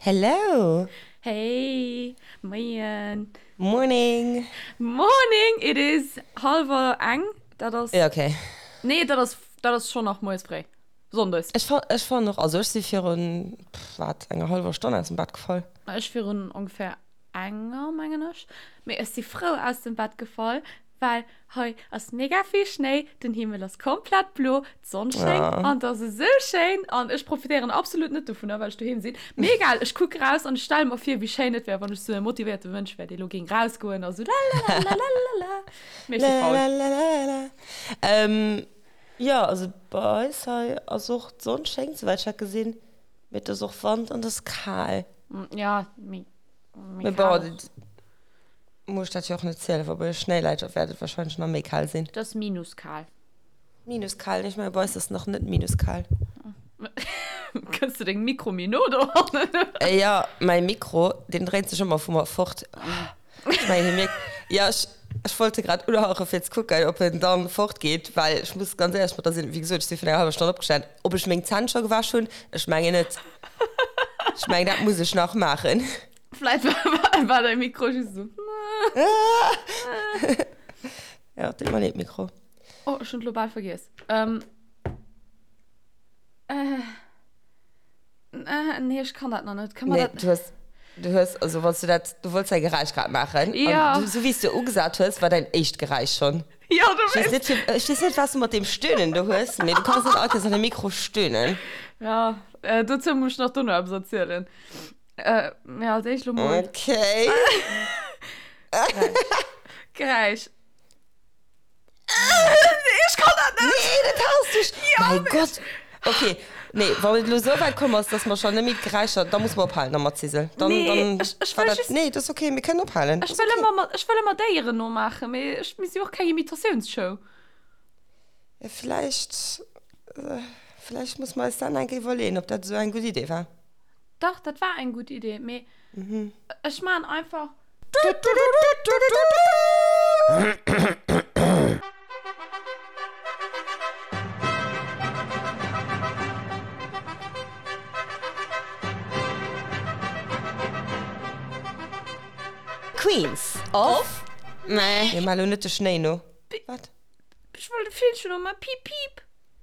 Hello! Hey! Moien! Morning! Morning! It is hallwer eng. Dat ass. Ja, okay. Nee, dat ass, dat ass schonn nach moies fréi. Sonndes. Ech fa, ech fannen och, also ech si virun, pff, wat, enger hallwer Stonn aus dem Bett gefall. Ech virun ongeféier enger, mengen ech. Mee ech si frou aus dem Bett gefall, Well hei ass mega vill Schnéi, den Himmel ass komplett blo, d'Sonn schéngt an et ass esou schéin an ech profitéieren absolut net dovunner, well ech doheem sinn. Mee egal, ech kucke raus an ech stelle mer vir, wéi schéin et wär, wann ech sou e motivéierte Mënsch wär, dee lo géing rausgoen a sou lalalalalala. Mee ech si faul. Lalalalalala. Jo, also bei eis hei ass och d'Sonn schéngt, souwäit ech dat gesinn, mee et ass och Wand an et ass kal. Jo, mee méi kal. Muss ech dat jo och net zielen, wa bei iech Schnéi läit, da wäert et wahrscheinlech nach méi kal sinn. Et ass minuskal. Minuskal, nee, ech menge bei eis ass nach net minuskal. Kënns de deng Mikro méi no dohannen? Jo, mäi Mikro, deen dréint sech ëmmer vu mer fort. Ech mengen, hie mierkt, jo, ech, ech wollt e grad unhauchen, fir ze kucken, ob en dann fortgeet, well ech muss ganz éierlech mat der sinn, wéi gesot, ech si virun enger hallwer Stonn opgestan, ob ech meng Zänn scho gewäsch hunn, ech mengen net. Ech mengen, dat muss ech nach maachen. Vläit war däi Mikro just esou. Ja, deet mer leed, Mikro. Oh, ech hunn et lo bal vergiess. Ähm. Äh. Äh, nee, ech kann dat nach net. Kann man Nee, dat. du hues, du hues, also wann s du dat, du wollts däi Geräisch grad maachen. Ja. An du, sou wéi s du ugesat hues, war däin éischt Geräisch schonn. Ja, du Ech weess weess. net, fir, ech weess net, wat s du mat deem Stöhnen do hues, mee du kanns net all Kéiers an de Mikro stöhnen. Ja, äh, dozou muss ech nach dono eppes erzielen. Äh, mee als éischt lo mol. Okay. Geräisch. Nee, ech kann dat net! Nee, dat haas du sch. Ja, Mäi Gott! Okay, nee, wann et elo esou wäit komm ass, dass mer schon net méi d'Geräischer, da muss mer ophalen da mat Zisel. Dann, Nee, dann ech, ech war wëll dat, just. nee, dat ass okay, mir kënnen ophalen. Ech Ass wëll okay. ëmmer mat, ech wëll ëmmer Déieren nomaachen, mee ech, mir si jo och keng Imitatiounsshow. Ja, villäicht, villäicht muss mer eis dat nach eng Kéier iwwerleeën, ob dat esou eng gutt Idee war. Dach, dat war eng gutt Idee, mee ech maan einfach. Queens of. Mir maachen elo net de Schnéi no. Wat? Ech wollt e Villchen no maachen. Piip, piip.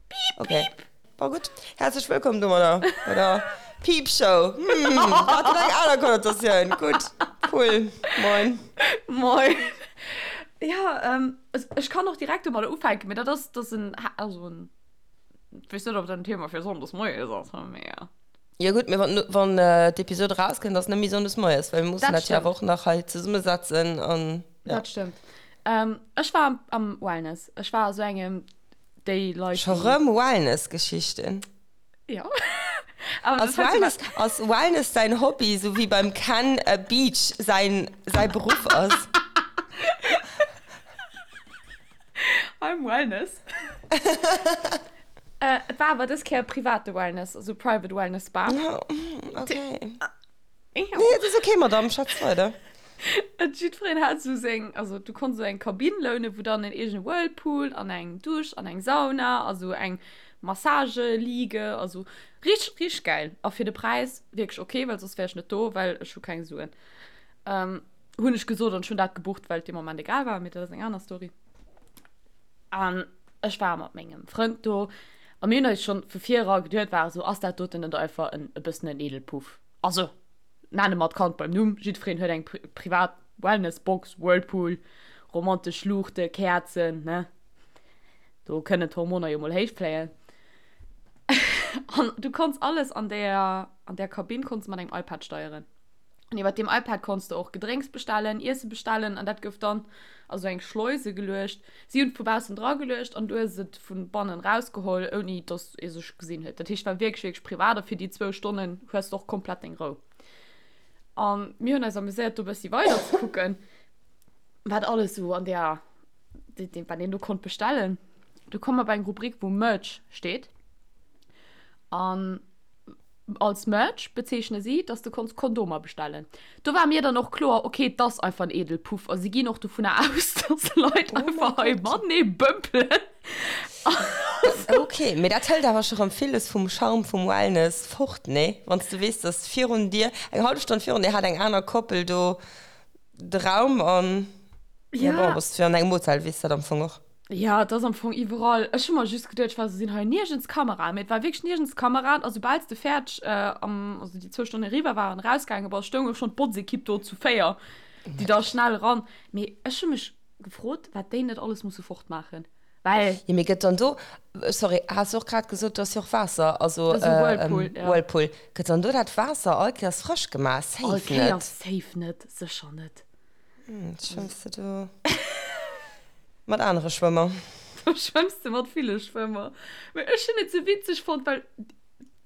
Piip, Okay. piip. Bon, gutt. Häerzlech wëllkomm domadder bei der Piip-Show. Hm, dat huet eng aner Konnotatioun. Gutt, cool. Moin. Moin. Ja, ähm, ech kann och direkt domadder ufänken, mee dat ass, dat ass en, also en, ech weess net, ob dat en Thema fir sonndes moies ass, mee ja. Jo gutt, mee wann, wann d'Episod erauskënnt, ass net méi sonndes moies, well mir mussen Dat dat jo awer stëmmt. och nach hei zesummesetzen an ja. Dat stëmmt. Ähm, ech war am, am Wellness. Ech war a sou engem déi Leit, Scho déi. rëm Wellness-Geschichten. Ja. Awer Ass das heißt Wellness, ass Wellness däin Hobby, sou wéi beim Ken Beach säin, säi Beruff ass? I'm Wellness. Äh, et war awer dës Kéier private Wellness, also Private Wellness Spa. Okay. Ja. Nee, et ass okay, Madame, schwätz weider. Et jiddwereen hat sou seng, also du konns sou eng Kabinn lounen, wou dann en eegene Whirlpool an eng Dusch an eng Sauna a sou eng Massageliege, also richteg, richteg gäil. A fir de Präis wierklech okay, well soss wär ech net do, well ech hu keng Suen. Ähm, hunn ech gesot an ech hunn dat gebucht, well et dee Moment egal war, mee dat ass eng aner Story. An ech war mat mengem Frënd do a mir hunn eis schonn vu vir era geduet, war esou, ass dat doten net einfach en e bëssen en Edelpuff? Also, nenne mer d'Kand beim Numm, jiddwereen huet eng privat Wellnessbox, Whirlpool, romantesch Luuchte, Käerzen, ne? Do kënnen d'Hormoner jo mol héich fléien. An du konns alles an där, an där Kabinn konns de mat engem iPad steieren. An iwwer deem iPad konns de och Gedrénks bestellen, Iesse bestellen an dat gouf dann a sou eng Schleuse geluecht. Si hunn et vu baussen dra geluecht an du hues et vu bannen rausgeholl, ouni dass ee sech gesinn huet. Dat heescht, war wierklech, wierklech privat a fir déi zwou Stonnen hues de och komplett deng Rou. An mir hunn eis amuséiert, do e bëssi weider ze kucken, wat alles sou an där, wat een do konnt bestellen. Du komm mer bei eng Rubrik, wou Merch steet. An Als Merch bezeechne si, dass de konns Kondomer bestellen. Do war mir dann och kloer, okay, 't ass einfach en Edelpuff a si ginn och dovunner aus, dass Leit Oh einfach mäi hei Gott. matenee bëmpelen. Ok, mee dat hëlt awer scho rëm villes vum Charme vum Wellness fort, nee? Wann s de weess, dass virun dir, eng hallef Stonn virun dir hat eng aner Koppel do de Raum an, ja bon, bass du jo an engem Hotel, weess dat am Fong och. Jo, et ass am Fong iwwerall. Ech hu mer just geduet, ech war esou, sinn hei niergends Kameraen? Mee et war wierklech niergends Kameraen a soubal s de fäerdeg am, also déi zwou Stonnen eriwwer waren, erausgaange bass, stoung och schonn d'Botzekipp do zu 4, déi da schnell eran. Mee ech hu mech gefrot, wat déi net alles musse fortmaachen. Well. Jo, mee gëtt dann do, sorry, has du och grad gesot, do ass jo och Waasser, also Whirlpool, ja. Whirlpool, gëtt dann do dat Waasser all Kéiers frësch gemaach? Safe net. All Kéiers safe net, sécher net. Schwëmms de do mat anere Schwëmmer? Do schwëmms de mat ville Schwëmmer. Mee ech hunn et sou witzeg fonnt, well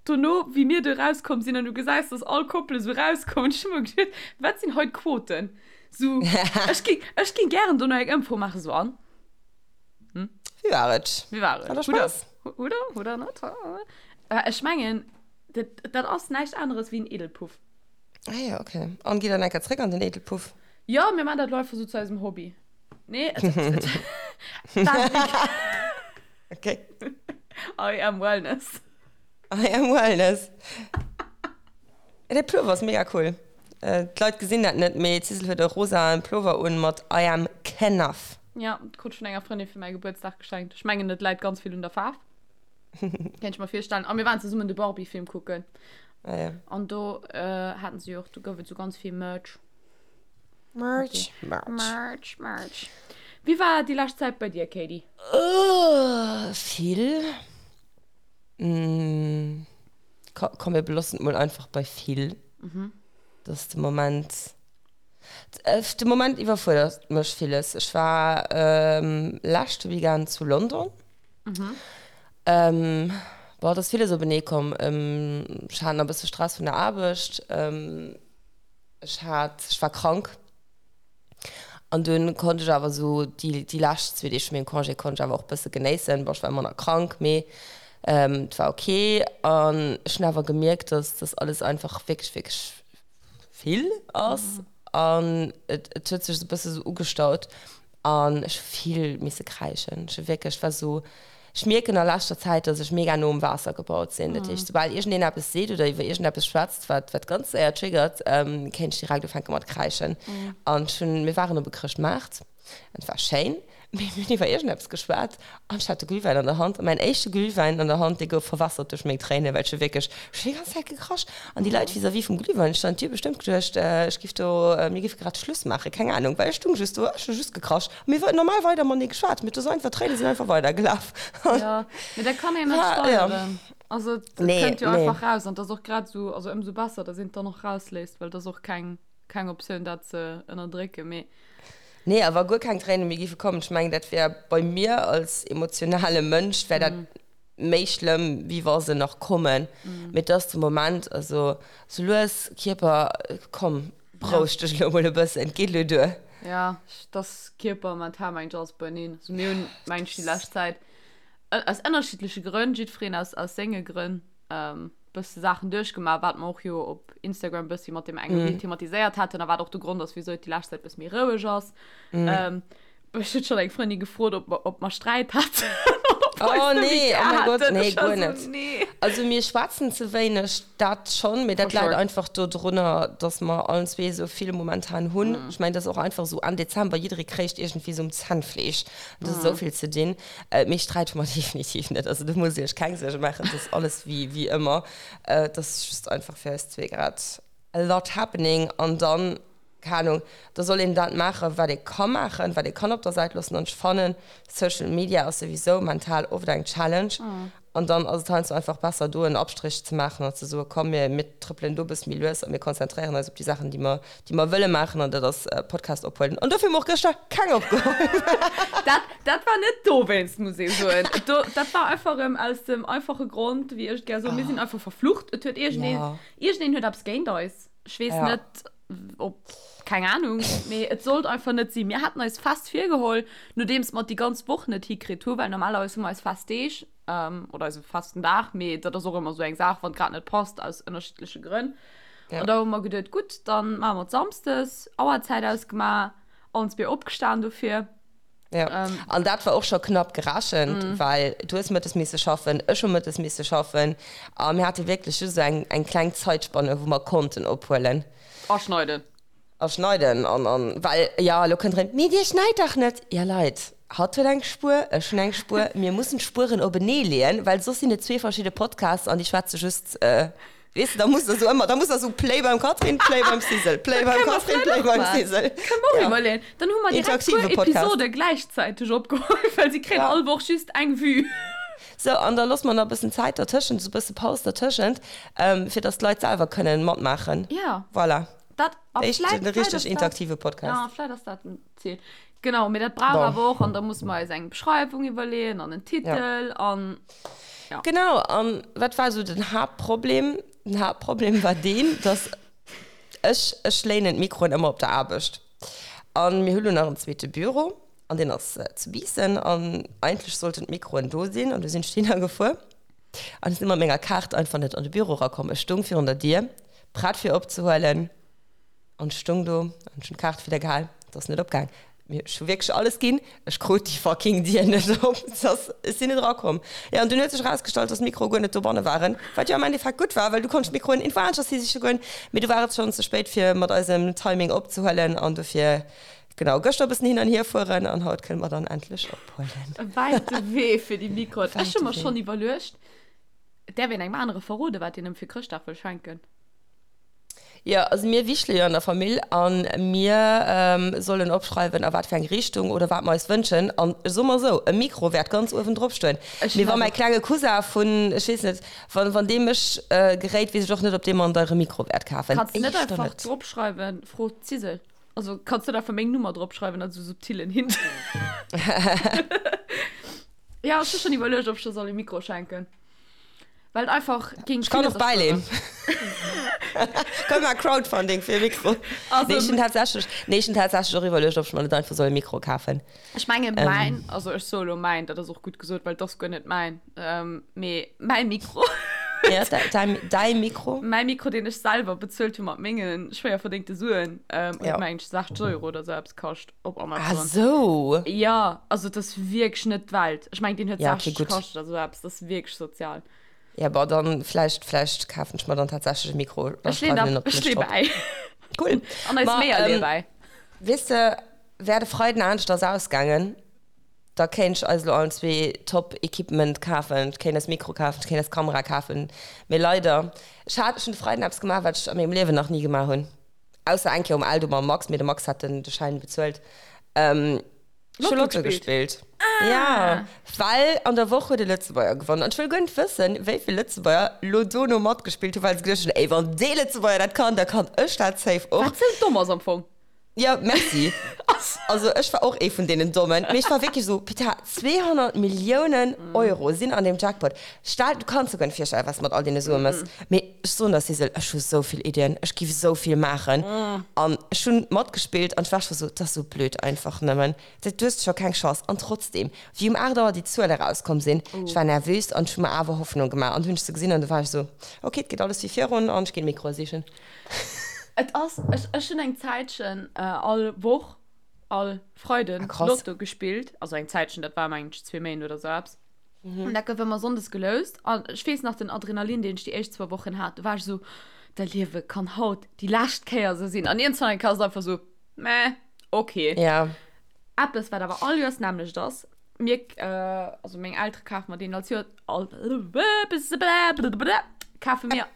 dono, wéi mir do erauskomm sinn an du gesäis, dass all Koppele sou erauskommen, ech hu mer geduet, wat sinn hei d'Quoten? Sou, ech ging, ech ging gären dono eng Ëmfro maachen, sou an? Hm? Wéi war et? Wéi war et? Hat der Spaass? Oder? Oder net? Ech mengen, dat, dat ass näischt aneres wéi en Edelpuff. Ah ja, okay. An gitt dann eng Kéier zréck an den Edelpuff? Jo, mir maan dat elo einfach sou zu eisem Hobby. Nee, et, et, dat Okay. I am Wellness. I am Wellness. Dee Pullover ass mega cool. D'Leit gesinn dat net, mee d'Sissel huet e rosaen Pullover un mat I am Kenough. Ja, krut ech vun enger Frëndin fir mäi Gebuertsdag geschenkt. Ech mengen, et läit ganz vill un der Faarf. Kéint ech mer virstellen. A mir waren zesummen de Barbie-Film kucken. Ah ja. An do haten se jo och, do gouf et sou ganz vill Merch. Merch, Merch. Merch, Merch. Wéi war déi lescht Zäit bei dir, Katie? Vill. Komm, mir beloossen et mol einfach bei vill. Dass de Moment, de Moment iwwerfuerdert mech villes. Ech war leschte Weekend zu London. Bon, et ass villes openee komm. Ech hat nach e bësse Stress vun der Aarbecht. Ech hat, ech war krank. An dunn konnt ech awer esou déi, déi lescht zwee Deeg vu mengem Congé konnt ech awer och e bësse genéissen. Bon, ech war ëmmer nach krank, mee et war ok. An ech hunn awer gemierkt, dass dass alles einfach wierklech, wierklech vill ass. An et, et huet sech esou e bësse sou ugestaut. An ech hu vill misse kräischen. Ech hu wierklech, war sou, ech mierken a leschter Zäit, dass ech mega no um Waasser gebaut sinn. Dat heescht, soubal iergendeen eppes seet oder iwwer iergendeppes schwätzt, wat, wat ganz séier triggert, kéint ech direkt ufänke mat kräischen. An ech hunn, mir waren op e Chrëschtmaart an et war schéin, mee mir hunn iwwer iergendeppes geschwat an ech hat de Glühwäin an der Hand. A mäin éischte Glühwäin an der Hand, dee gouf verwässert duerch meng Tréinen, well ech hu wierklech, ech hunn déi ganz Zäit gekrasch. An déi Leit vis-à-vis vum Glühweinstand, déi hu bestëmmt geduecht, ech giff do, mir giffe grad Schluss maachen, keng Ahnung, well ech stung just do, ech hu just gekrasch. A mir hu normal weider matenee geschwat, mee et ass einfach, d'Tréine sinn einfach weidergelaf. Jo, mee dat kann een net steieren. Also et kënnt jo einfach raus an et ass och grad esou, also ëmsou besser, datt een et dann och rausléisst, well et ass och keng, keng Optioun dat ze ënnerdrécken, mee. Nee, a wa guer keng Tréine méi giffe kommen, ech mengen, dat wär bei mir als emotionale Mënsch wär dat méi schlëmm, wéi wa se nach kommen. Mee et ass de Moment, also sou lues, Kierper, komm, beroueg dech elo mol e bëssen, et geet elo duer. Jo, et ass Kierper, mental, mengt ech, alles beieneen. Also mir hunn, mengt ech, déi lescht Zäit aus ënnerschiddleche Grënn, jiddwereen aus, aus senge Grënn, bësse Saachen duerchgemaach, wat mer och jo op Instagram bëssi mat deem enge Reel thematiséiert haten a wat och de Grond ass, wisou et déi lescht Zäit bësse méi roueg ass. Ech huet schon eng Frëndin gefrot, ob mer, ob mer Sträit haten. Oh nee, oh mein Gott, nee, guer net. Nee. Also mir schwätzen ze wéineg, dat schon, mee dat läit einfach dodrunner, dass mer allen zwee esou vill momentan hunn. Ech mengen, dat ass och einfach esou Enn Dezember, jidderee kréicht iergendwéi esou um Zännfleesch. Et ass esou vill ze dinn. Mee Sträit hu mer definitiv net. Also do musst Dir Iech keng Suerge maachen, et ass alles wéi, wéi ëmmer. Et ass just einfach fir eis zwee grad a lot happening an dann Keng Ahnung, da soll een dat maachen, wat ee ka maachen, wat ee kann op der Säit loossen. An ech fannen, Social Media ass souwisou mental oft eng Challenge. An dann ass et heiansdo einfach besser, do en Abstrich ze maachen an ze soen, komm, mir, mir trëppelen do e bësse méi lues a mir konzentréieren eis op déi Saachen, déi mer, déi mer wëlle maachen. An dat ass Podcast ophuelen. An dofir hu mer och gëschter keng opgeholl. Dat, dat war net dowéinst, muss ee soen. Do, dat war einfach erëm aus dem einfache Grond, wéi ech et gär soen, mir sinn einfach verflucht. Et huet iergendeen, iergendeen huet eppes géint eis. Ech weess net, ob, keng Ahnung, mee et sollt einfach net sinn. Mir haten eis fest virgeholl, nodeems mer et déi ganz Woch net hikritt hu, well normalerweis hu mer eis fest Deeg, oder eise festen Dag, mee dat ass och ëmmer esou eng Saach, wann et grad net passt, aus ënnerschiddleche Grënn. An da hu mer geduet, gutt, dann maache mer et samsdes, Auerzäit ausgemaach, allen zwee opgestan dofir. Ja. Ähm. An dat war och scho knapp gerechent, mm. well du hues mëttes misse schaffen, ech hu mëttes misse schaffen a mir hate wierklech just eng, eng kleng Zaitspanne, wou mer konnten ophuelen. A schneiden. A schneiden an, an well, ja, elo kënnt erëm, Mee dir schneit dach net! Ja Leit, hatt huet eng Spuer, ech hunn eng Spuer, mir mussen d'Spueren openee leeën, well soss sinn et zwee verschidde Podcasts an déi schwätze just, äh, Weess de, da muss der sou ëmmer, da muss der sou Play beim Catherine, Play beim Sizzle, Play beim Catherine, Play beim Sizzle. Kënne mer och iwwerleeën. Dann hu mer direkt puer Episode gläichzäiteg opgeholl, well si kréien all Woch just eng Vue. Sou, an da loosse mer nach e bëssen Zäit dertëschent, sou e bësse Paus dertëschent, fir datt d'Leit selwer kënnen matmaachen. Ja. Voilà. Dat, a vläit, vläit ass dat. Interaktive Podcast. Ja, vläit ass dat en Ziel. Genau, mee dat brauch awer och, an da musse mer eis eng Beschreiwung iwwerleeën an en Titel an. Ja. Genau, an wat war esou den Haaptproblem? Den Haaptproblem war deen, dass ech, ech léinen d'Mikroen ëmmer op der Aarbecht. An mir hu lo nach en zweete Büro an deen ass zu Biissen an eigentlech sollten d'Mikroen do sinn an du sinn ech dohinner gefuer an ech sinn mat menger Kaart einfach net an de Büro erakomm. Ech stung virun der Dier, prett fir opzehuelen. An ech stung do an ech hunn d'Kaart widder gehal, et ass net opgaang. Mee ech hu wierklech alles ginn, ech krut déi fucking Dier net op. Et ass, ech sinn net erakomm. Jo, an dunn huet sech erausgestallt, dass d'Mikroe guer net dobanne waren, wat jo am Endeffekt gutt war, well du konntst d'Mikroen iergendwou aneschters hi siche goen. Mee du war et schonn ze spéit, fir mat eisem Timing opzehuelen an dofir, genau, gëschter e bëssen hin an hier fueren an haut kënne mer dann endlech ophuelen. E wäite Wee fir déi Mikroen. Ech hu mer schonn iwwerluecht, et däerf een engem anere verroden, wat een ëm fir Chrëschtdag wëll schenken. Jo, also mir wichtele jo an der Famill a mir sollen opschreiwen, a wat fir eng Richtung oder wat mer eis wënschen. An ech soe mer esou, e Mikro wäert ganz uewen drop stoen. Mee wa mäi klenge Cousin vun, ech weess net, wann, wann dee mech geréit, weess ech och net, ob dee mer en deiere Mikro wäert kafen. Kanns net einfach dropschreiwen, Fro d'Zisel. Also kanns net einfach meng Nummer dropschreiwen als esou subtilen Hint. Jo, ech hu schonn iwwerluecht, ob ech der soll e Mikro schenken. Well et einfach géing Ech kann och bäileen. Komm mar Crowdfunding fir e Mikro. Also, nee, ech hunn tatsächlech, nee, ech hunn tatsächlech och iwwerluecht, ob ech mer net einfach soll e Mikro kafen. Ech menge mäin, also ech soe lo mäin, dat ass och gutt gesot, well et ass guer net mäin, mee mäi Mikro. Ja, däi, däi Mikro. Mäi Mikro, deen ech selwer bezuelt hu mat menge schwéier verdéngte Suen, huet mengen ech 60 Euro oder sou eppes kascht op Amazon. Ah sou. Ja, also et ass wierklech net d'Welt. Ech mengen, deen huet Ja, okay, 60 gutt. kascht oder sou eppes, dat ass wierklech sozial. Ja, bon, dann vläicht, vläicht kafen ech mer dann tatsächlech e Mikro. Da Ech leen schreiwen en op ech d'Lëscht lee drop. bäi. Cool. An eis Ma, Meeër lee ähm, bäi. weess de, wär de Freiden aneschters ausgaangen, da kéint ech eis elo allen zwee top Equipment kafen, ech kéint eis Mikro kafen, ech kéint eis Kamera kafen, mee leider, ech hat, ech hunn de Freiden eppes gemaach, wat ech a mengem Liewen nach ni gemaach hunn. Ausser eng Kéier um Eldo mam Max, mee de Max hat den de Schäin bezuelt. Ähm, ech hu Lotto gespillt. Ah. Ja, well an der Woch huet e Lëtzebuerger gewonnen. An ech wëll guer net wëssen, wéi vill Lëtzebuerger lo dono matgespillt hunn, well se geduecht hunn, ey, wann dee Lëtzebuerger dat kann, da kann ech dat safe och. Wat sou domm ass am Fong. Ja, merci. Also ech war och ee vun deenen Dommen, mee ech war wierklech esou, Putain, 200 Milliounen Euro sinn an deem Jackpot. Stell, du kanns der guer net virstellen, wat s de mat all deene Sue mëss. Mee ech soen der, Sissel, ech hu sou vill Iddien, ech giff sou vill maachen. An ech hunn matgespillt an ech war scho sou, 't ass sou blöd einfach nëmmen, du hues scho keng Chance. An trotzdem, wéi um 8 Auer déi Zuele rauskomm sinn, ech war nervös an ech hu mer awer Hoffnung gemaach. An du hunn ech se gesinn an du war ech sou, ok, et geet alles wéi virun an ech ginn Mikroe sichen. Et ass, ech, ech hunn eng Zäitchen all Woch, all Freiden Ah, krass. Lotto gespillt. Also eng Zäitchen, dat war mengen ech zwee Méint oder sou eppes. An dat gouf ëmmer sonndes geloust. An ech weess nach den Adrenalin, deen ech déi éischt zwou Wochen hat, do war ech esou, Dat Liewe kann haut déi lescht Kéier esou sinn. An iergendwann eng Kéier ass et einfach esou, Meh, okay. Ja. Eppes, wat awer all Joers d'nämmlecht ass, Mir, also meng Eltere kafe mer deen als Joer, all, kafe mir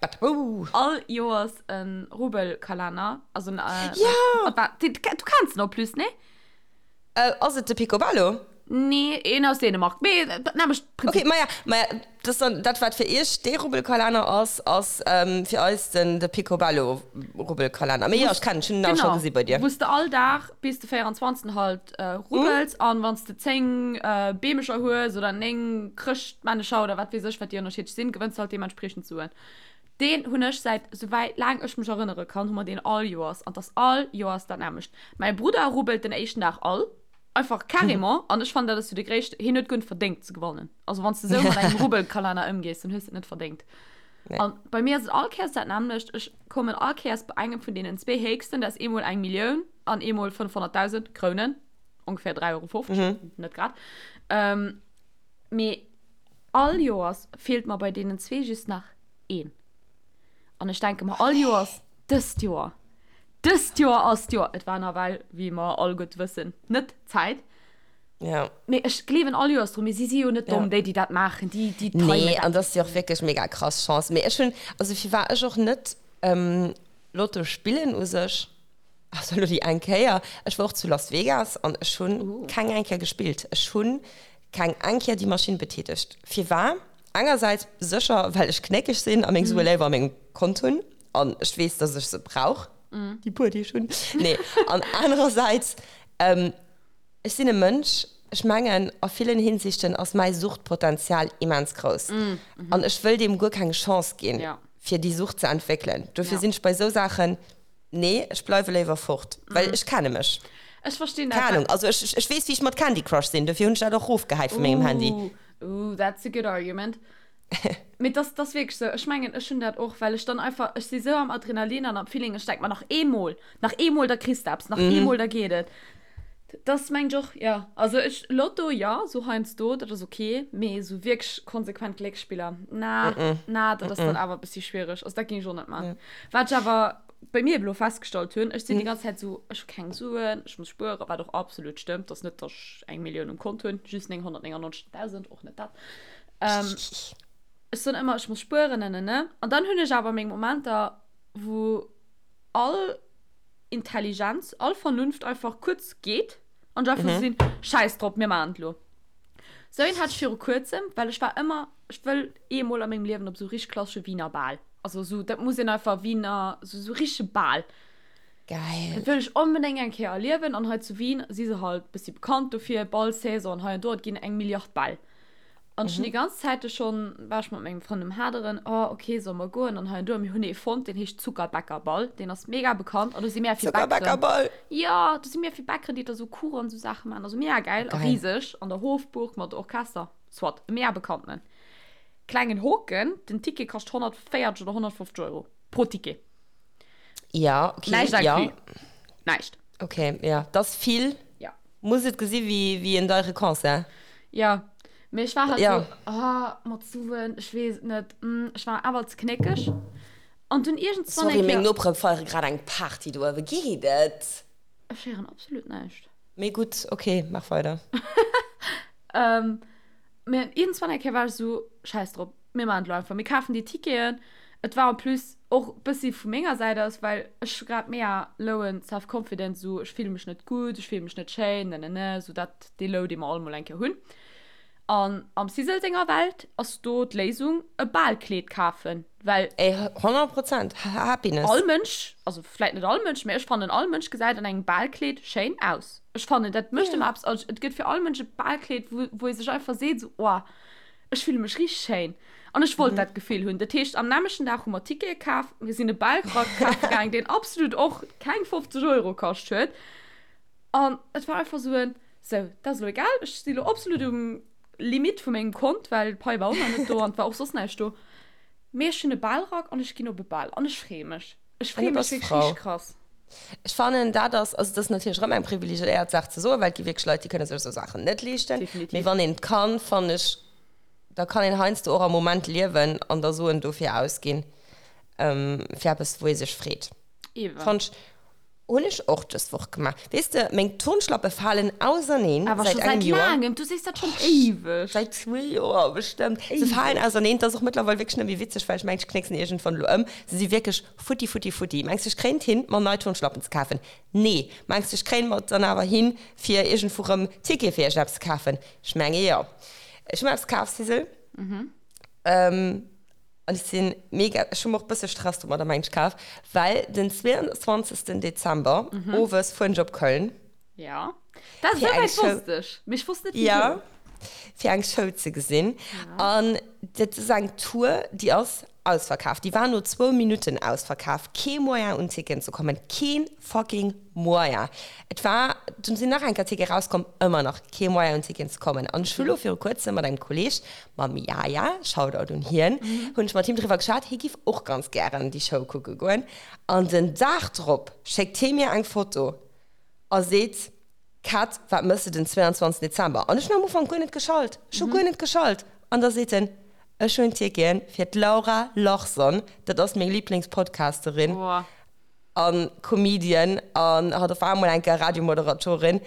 all Joers e Rubbelkalenner. Also en, Ja! Du kenns en en plus, nee? Ass et de Picobello? Nee, een aus Dänemark. Mee dat nämmlecht Prinzip. Okay, maja, maja, dat ass dann dat, wat fir iech dee Rubbelkalenner ass, ass fir eis den de Picobello-Rubbelkalenner. Mee jo, ech kennen, ech hunn en awer scho gesi bei dir. Genau, wou s de all Dag bis de 24. halt rubbels an wann s de 10 Beemecher hues oder 9 Chrëschtmännecher oder wat weess ech, wat déi ënnerschiddlech sinn, gewënns de halt deementspriechend Suen. Deen hunn ech säit souwäit laang ech mech erënnere kann, hu mer deen all Joers an 't ass all Joers dat nämmlecht. Mäi Brudder rubbelt den éischten Dag all. Einfach carrément. An ech fannen, dat ass jo de gréisste, hien huet guer net verdéngt ze gewannen. Also wann s de esou mat engem Rubbelkalenner ëmgees, dann hues de et net verdéngt. Nee. An bei mir ass et all Kéiers dat nämmlecht. Ech kommen all Kéiers bei engem vun deenen zwee héchsten, dat ass eemol eng Millioun an eemol 500.000 Krounen. Ongeféier 3,50 Euro, net grad. Mee all Joers feelt mer bei deenen zwee just nach een. An ech denke mer all Joers, dëst Joer, dëst Joer ass d'Joer. Et war nawell, wéi mer all gutt wëssen, net d'Zäit. Ja. Mee ech gleewen all Joers dru, mee si si jo net domm, déi, déi dat maachen, déi, déi timen Nee, dat. an dat ass jo och wierklech mega krass Chance. Mee ech hunn, also firwat ech och net Lotto spillen u sech, also elo déi eng Kéier, ech war och zu Las Vegas an ech hunn keng eng Kéier gespillt. Ech hunn keng eng Kéier déi Maschinn betätegt. Firwat? Engersäits sécher, well ech knéckeg sinn a meng Sue léiwer a mengem Kont hunn an ech weess, dass ech se brauch, déi puer, déi ech hunn. Nee, an anerersäits, Ech sinn e Mënsch, ech mengen, a villen Hinsichten ass mäi Suchtpotenzial immens grouss. An ech wëll deem guer keng Chance ginn, fir déi Sucht ze entwéckelen. Dofir sinn ech bei esou Saachen, nee, ech bleiwe léiwer fort, well ech kenne mech. Ech verstinn dat. Keng Ahnung, also ech, ech weess, wéi ech mat Candy Crush sinn, dofir hunn ech dat och erofgehäit vu mengem Handy. Ooh, that's a good argument. Mee dass, dass wierklech sou. Ech mengen, ech hunn dat och, well ech dann einfach, ech si sou am Adrenalin an am Feeling, ech denk mer, nach eemol, nach eemol, da kriss de eppes, nach eemol, da geet et. Dass mengen ech och, jo. Also ech, Lotto, jo, sou heiansdo, dat ass ok, mee sou wierklech konsequent Glécksspiller, na, na, dat ass dann awer e bëssi schwiereg. Also dat géing ech och net man. Wat ech awer bei mir elo festgestallt hunn, ech sinn déi ganz Zäit sou, ech hu keng Suen, ech muss spueren, wat och absolut stëmmt, dass net, dass ech eng Millioun um Kont hunn, just 999.000, och net dat. Ähm, ech soen ëmmer, ech muss spueren, ne, ne, ne. An dann hunn ech awer meng Momenter, wou all Intelligenz, all Vernunft einfach kuerz geet an ech einfach sou sinn, Schäiss drop, mir maachen et elo. Sou een hat ech viru kuerzem, well ech war ëmmer, ech wëll eemol a mengem Liewen op sou richteg klassesche Wiener Bal. Also sou, dat muss een einfach Wiener, sou, sou richtege Bal. Geil. Dat wëll ech onbedéngt eng Kéier erliewen an hei zu Wien si se halt bëssi bekannt dofir, Ballsaison hei an do, et ginn eng Milliard Bäll. An ech hunn déi ganz Zäite schonn, war ech mat mengem Frënd um Haderen, oh ok, solle mer goen an hei an do. A mir hunn ee fonnt, deen heescht Zuckerbäckerball, deen ass mega bekannt an do si mega vill Bäckeren. Zuckerbäckerball! Jo, do si mega vill Bäckeren, déi da sou Kuchen an sou Saache maachen, also mega gäil a riseg an der Hofburg mat Orchester, soit, e mega bekanntenen. Klengen Hoken, den Ticket kascht 140 oder 150 Euro pro Ticket. Ja, okay. Näischt ja. inclus. Näischt. Okay, ja. Das ass vill. Ja. Muss et gesi wéi, wéi en deiere Concert. Ja. Mee ech war halt Ja. so, ah, mat Suen, ech weess et net, mm, ech war awer ze knéckeg. An dunn iergendswann Sorry, eng meng Kéier. Nopere feiere grad eng Party do uewe. Geet et? Ech héieren absolut näischt. Mee gutt, okay, maach weider. Ähm, mee iergendswann eng Kéier war ech sou, schäiss drop, mir maachen et elo einfach, mir kafen déi Ticketen. Et war en plus och bëssi vu menger Säit aus, well ech hu grad mega lowen Self-Confidence, sou ech fille mech net gutt, ech fille mech net schéin, nenene, sou dat, dee Low, dee mer all mol eng Kéier hunn. An am Sisel senger Welt ass do d'Léisung e Balkleed kafen, well. Ey, 100 Prozent, Happiness. All Mënsch, also vläit net all Mënsch, mä ech fannen all Mënsch gesäit an engem Balkleed schéin aus. Ech fannen dat mécht ëmmer eppes, also et gëtt fir all Mënsch e Balkleed, wou wou ee sech einfach seet sou, oh, Ech fille mech richteg schéin an ech wollt dat Gefill hunn. Dat heescht, am nämmlechten Dag hu mer Tickete kaf, mir sinn e Ballrack kafe gaang, deen absolut och keng 50 Euro kascht huet. An et war einfach sou en, Sou, dat ass elo egal, ech si lo absolut um Limit vu mengem Kont, well d'Pai war och nach net do an et war och soss näischt do. Mee ech hunn e Ballrack an ech ginn op e Bal an ech freeë mech. Ech An du freeë mech bass wierklech frou. richteg krass. Ech fannen, dat ass, also dat ass natierlech erëm eng privilegiéiert Saach ze soen, well et gi wierklech Leit, déi kënne sech esou Saachen net leeschten. Mee Definitiv. wann een et kann, fannen ech, da kann een heiansdo och am Moment liewen an da Suen dofir ausginn, fir eppes, wou ee sech freet. Ewen. Fannt ech, hunn ech och dës Woch gemaach. Weess de, meng Turnschlappe falen auserneen Awer säit scho säit engem Joer. laangem, du sees dat schonn éiweg. Säit zwee Joer bestëmmt. Se falen Éiweg. auserneen. Et ass och mëttlerweil wierklech net méi witzeg, well ech mengen, ech knécksen iergendwann elo ëm. Se si wierklech Futti, futti, futti. Mengs de, ech kréien et hin, mer nei Turnschlappen ze kafen? Nee. Mengs de, ech kréien mer et dann awer hin, fir iergendwou rëm Tickete fir iergendeppes ze kafen? Ech menge jo. Ech hu mer eppes kaf, Sisel. An ech si mega, ech hu mer och e bësse Stress domadder, mengen ech, kaf, well den 22. Dezember owes fueren ech op Köln. Ja. Dat Fir eng esouwäit Show. wosst ech. Mee ech wosst net Ja, wisou. fir eng Show ze gesinn. Ja. An dat ass eng Tour, déi ass ausverkaf. Déi war no zwou Minutten ausverkaf. Kee Moyen un Ticketen ze kommen. Keen fucking Moyen. Et war, dunn sinn nach eng Kéier Tickete rauskomm, ëmmer nach kee Moyen un Ticketen ze kommen. An ech hu lo viru kuerzem mat engem Kolleeg, mam Yaya, Shoutout un hien, hunn ech mat him driwwer geschwat, hie giff och ganz gären déi Show kucke goen. An den Dag drop schéckt hie mir eng Foto a seet. Kat, wat mëss de den 22 Dezember? An ech hunn am Ufank guer net geschalt. Ech hu guer net geschalt. An da seet en, Ech hunn Ticketen fir d'Laura Larsson, dat ass meng Liblingspodcasterin a Comedian an hatt op emol eng Kéier Radiomoderatorin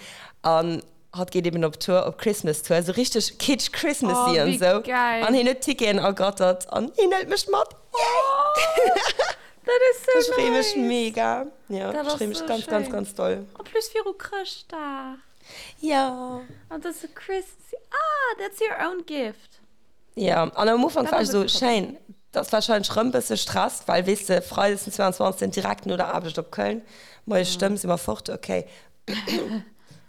an hatt geet eben op Tour, op Christmas Tour, esou richteg kitsch Christmassy an esou. An hien huet Ticketen ergattert an hien hëlt mech mat. Yay! Dat is so Ech freeë mech mega. Ja, ech freeë mech ganz, ganz, ganz doll. En plus viru Chrëschtdag. Ja. An dat ass so Christmassy. Ah, that's your own gift. Ja, an am Ufank war ech esou, schéin, dat ass warscheinlech rëm bësse Stress, well weess de, Freides den 22. direkt no der Aarbecht op Köln, moies Stëmm, si mer fort, okay.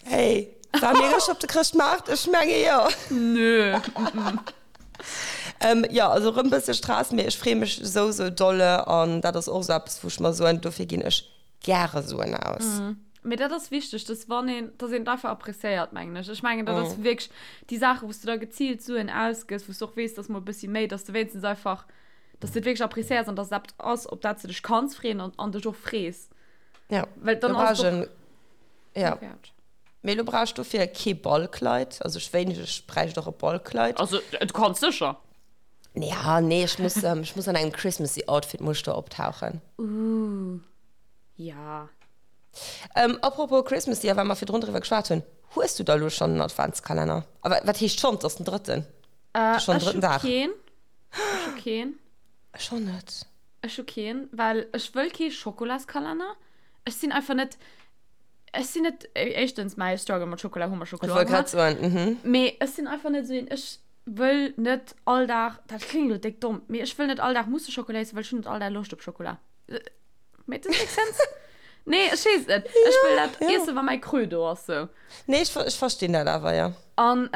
Hey, war mir rëscht op de Chrëschtmaart? Ech menge jo. Nö. Jo, also rëm bësse Stress, mee ech freeë mech esou, esou dolle an dat ass och esou eppes, wou ech mer soen, dofir ginn ech gäre Suen aus. Mee dat ass wichteg, dass wann een, dass een et einfach appréciéiert, mengen ech. Ech mengen, dat ass wierklech déi Saachen, wou s du da geziilt Suen ausgëss, wou s du och weess, dass mol e bëssi méi, dass du wéinstens einfach, dass du et wierklech appréciéiers an dass et eppes ass, op dat s du dech kanns freeën an, an dech och frees. Ja, Well dann ass et och. Ja. Mee elo brauch ech dofir kee Ballkleid. Also ech wéineg, ech bräicht och e Ballkleid. Also du kanns sécher. Ja, nee, ech muss, ech muss an engem Christmassy Outfit muss ech do optauchen. Ooh, ja. Ähm, apropos Christmassy, a well mer virdrun driwwer geschwat hunn, hues du da elo schonn en Adventskalenner? A wat, wat heescht schonn? Et ass den drëtten. Äh, ech hu keen. Ech hu keen. Ech och net. Ech hu keen, well ech wëll kee Schokolaskalender. Ech sinn einfach net. Ech sinn net, éischtens, mäi Struggle mat Schokola hu mer scho kloer gemaach. Ech wollt grad soen, mhm. Mee ech sinn einfach net esou een, ech wëll net all Dag, dat kléngt elo déck domm, mee ech wëll net all Dag musse Schokola iessen, well ech hunn net all Dag Loscht op Schokola. Make this make sense? Nee, ech weess et net. Ech wëll dat iessen, wa mäi Creux do ass, sou. Nee, ech, ech verstinn dat awer, jo. An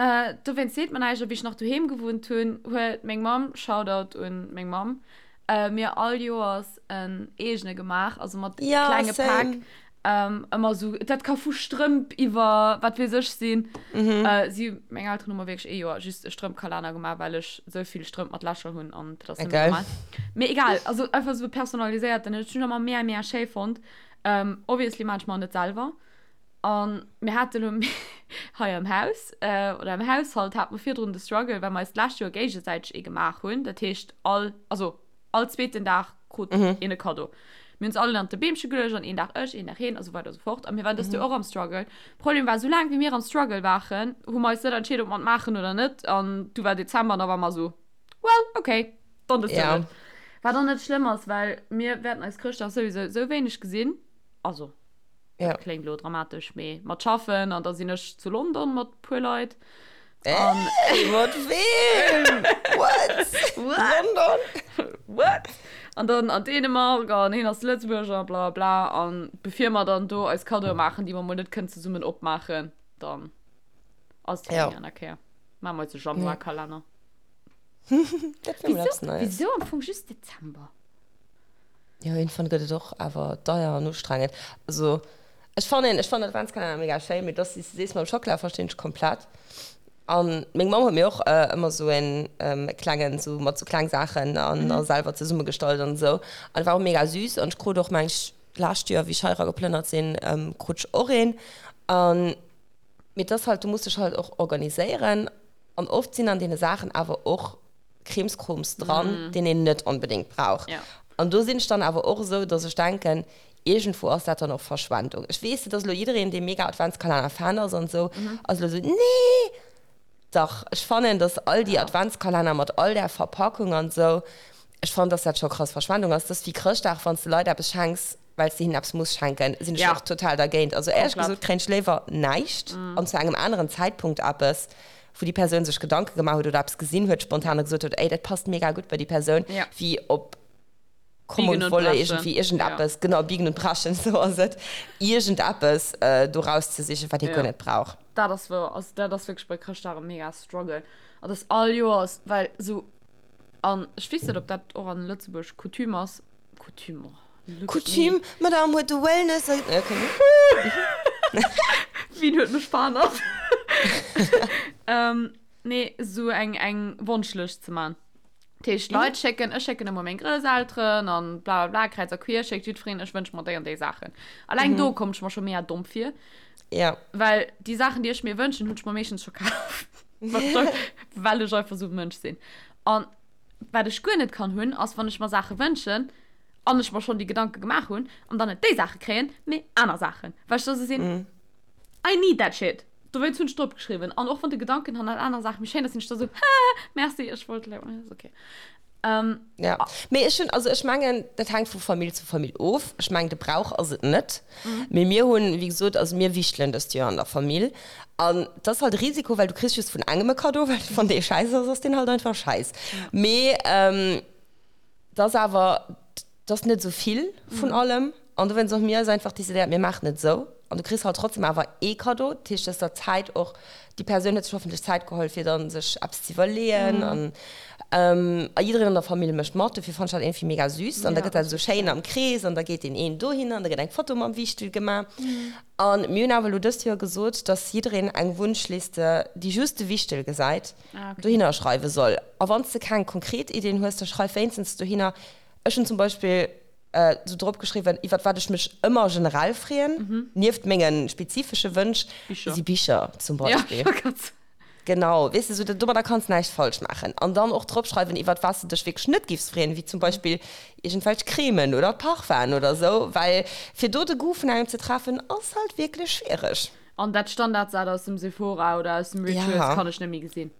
dowéinst seet mer näischt. A wéi ech nach doheem gewunnt hunn, huet meng Mamm, Shoutout un meng Mamm, mir all Joers en eegene gemaach, also mat ja, klenge Päck. Ähm, ëmmer sou, dat ka vu Strëmp iwwer wat weess ech sinn. Mhm. Äh, si, meng Elteren hu mer wierklech ee Joer just e Strëmpkalenner gemaach, well ech sou vill Strëmp mat Lächer hunn an dat ass net Geil. normal. Mee egal, also einfach sou personaliséiert, den ech hunn ëmmer mega, mega schéi fonnt. Ähm, obviously maan ech mer net selwer. An mir hate lo hei am Haus, äh, oder am Haushalt hate mer virdrun de Struggle, well mer eis d'lescht Joer géigesäiteg ee gemaach hunn. Dat heescht all, also all zweeten Dag krut een e Kaddo. Mir hunn se all ënnert de Beemche geluecht an een Dag ech, een Dag heen a sou weider a sou fort. A mir waren dëst Joer och am Struggle. Problem war, sou laang wéi mir am Struggle waren, hu mer eis net entscheet, ob mer et maachen oder net. An du war Dezember an da war mer sou, well, okay, dann dëst Joer Ja. net. Wat och net schlëmm ass, well mir wäerten eis Chrëschtdag souwisou sou wéineg gesinn. Also, Ja. dat kléngt elo dramatesch, mee mat schaffen an da sinn ech zu London mat puer Leit. An Ey, mat weem? What? What? London? What? An dann an Dänemark an hien ass Lëtzebuerger, bla bla. An bevir mer dann do eis Kaddoe maachen, déi mer mol net kënnen zesummen opmaachen, dann ass et Ja. eng aner Kéier. Maache mer eis e Januarkalenner. Dat wär mol eppes Wieso, Neies. wieso am Fong just Dezember? Jo, iergendwann gëtt et och awer deier an ustrengend. Also, ech fannen, ech fannen Adventskalenner mega schéin, mee dass, wéi s de sees, mam Schockela verstinn ech komplett. An meng Mamm huet mir och ëmmer esou en klengen, esou mat esou kleng Saachen an a selwer zesummegestallt an esou. An war och mega süß. An ech krut och, meng ech, d'lescht Joer, wéi ech hei era geplënnert sinn, krut ech och een. An, mee et ass halt, du muss dech halt och organiséieren. An oft sinn an deene Saachen awer och Krimskroms dran, deen een net onbedéngt brauch. Ja. An do sinn ech dann awer och esou, dass ech denken, iergendwou ass dat dann och Verschwendung. Ech weess, et ass elo jiddereen, dee mega Adventskalenner-Fan ass an esou, ass elo esou, Nee! Dach, ech fannen, dass all déi Adventskalenner mat all där Verpackung an esou, ech fannen, dass dat scho krass Verschwendung ass. Dat ass wéi Chrëschtdag, wann s de Leit eppes schenks, well s de hinnen eppes muss schenken, sinn ech Ja. och total dergéint. Also éierlech Komplett. gesot kréien ech léiwer näischt an zu engem aneren Zäitpunkt eppes, wou déi Persoun sech Gedanke gemaach huet oder eppes gesinn huet spontan a gesot huet, ey, dat passt mega gutt bei déi Persoun, Ja. wéi op Komm Biegen und und Wolle brechen. iergendwéi iergendeppes, genau, biegen und brechen, sou ass et, iergendeppes do rauszesichen, wat ee Ja. guer net brauch. Dat ass wouer. Also dat ass wierklech bei Chrëschtdag e mega Struggle. An dat all Joers, well sou, an ech weess net, ob dat och an Lëtzebuerg Coutume ass, Coutume, oh, look at me. Coutume, Madame huet de Wellness, okay. Wien huet mech verhannert? Ähm, nee, sou eng, eng Wonschlëscht ze man. Dat heescht, Leit schécken, ech schécken ëmmer meng Grousselteren an bla bla bla, kräiz a queer schéckt jiddwereen, ech wënsch mer déi an déi Saachen. Alleng do komm ech mer scho mega domm vir. Ja. Well déi Saachen, déi ech mir wënschen, hunn ech mer meeschtens scho kaf. Well ech einfach esou e Mënsch sinn. An wat ech guer net kann hunn, ass, wann ech mer Saache wënschen an ech mer schonn déi Gedanke gemaach hunn an dann net déi Saache kréien, mee aner Saachen. Well ech da esou sinn, I need that shit. Dowéinst hunn ech drop geschriwwen. An och wann de Gedanken hannert aner Saache méi schéin ass, sinn ech da sou, Haha, merci, ech wollt elo, ass ok. Ja, mee ech hunn, also ech mengen, dat hänkt vu Famill zu Famill of. Ech mengen, de Brauch ass et net. Mee mir hunn, wéi gesot, also mir wichtelen dëst Joer an der Famill. An et ass halt e Risiko, well du kriss just vun engem e Kaddo, well wann dee schäiss ass, ass deen halt einfach schäiss. Mee et ass awer, 't ass net esou vill vun allem an dowéinst och mir eis einfach decidéiert, mir maachen et esou an du kriss halt trotzdem awer ee Kaddo. Dat heescht, du hues der Zäit och, déi Persoun huet sech hoffentlech Zäit geholl fir dann sech eppes ze iwwerleeën an a jiddereen an der Famill mécht mat. Dofir fannen ech dat iergendwéi mega süß an da gëtt dat esou schéin am Krees an da geet deen een dohinner an da gëtt eng Foto mam Wichtel gemaach. An mir hunn awer elo dëst Joer gesot, dass jiddereen eng Wunschliste, déi just de Wichtel gesäit, dohinner schreiwe soll. A wann s de keng konkret Iddien hues, da schreif wéinstens dohinner, Ech hunn zum Beispill sou drop geschriwwen, iwwert wat ech mech ëmmer generell freeën, nieft menge spezifesche Wënsch, si Bicher zum Beispill. Genau, weess de, sou domadder kanns näischt falsch maachen. An dann och drop schreiwen, iwwert wat s de dech wierklech net giffs freeën, wéi zum Beispill iergendwelch Cremen oder Parfum'en oder sou, well fir do de Goût vun engem ze treffen, ass halt wierklech schwiereg. An dat Standardsat aus dem Sephora oder aus dem Rituals kann ech net méi gesinn.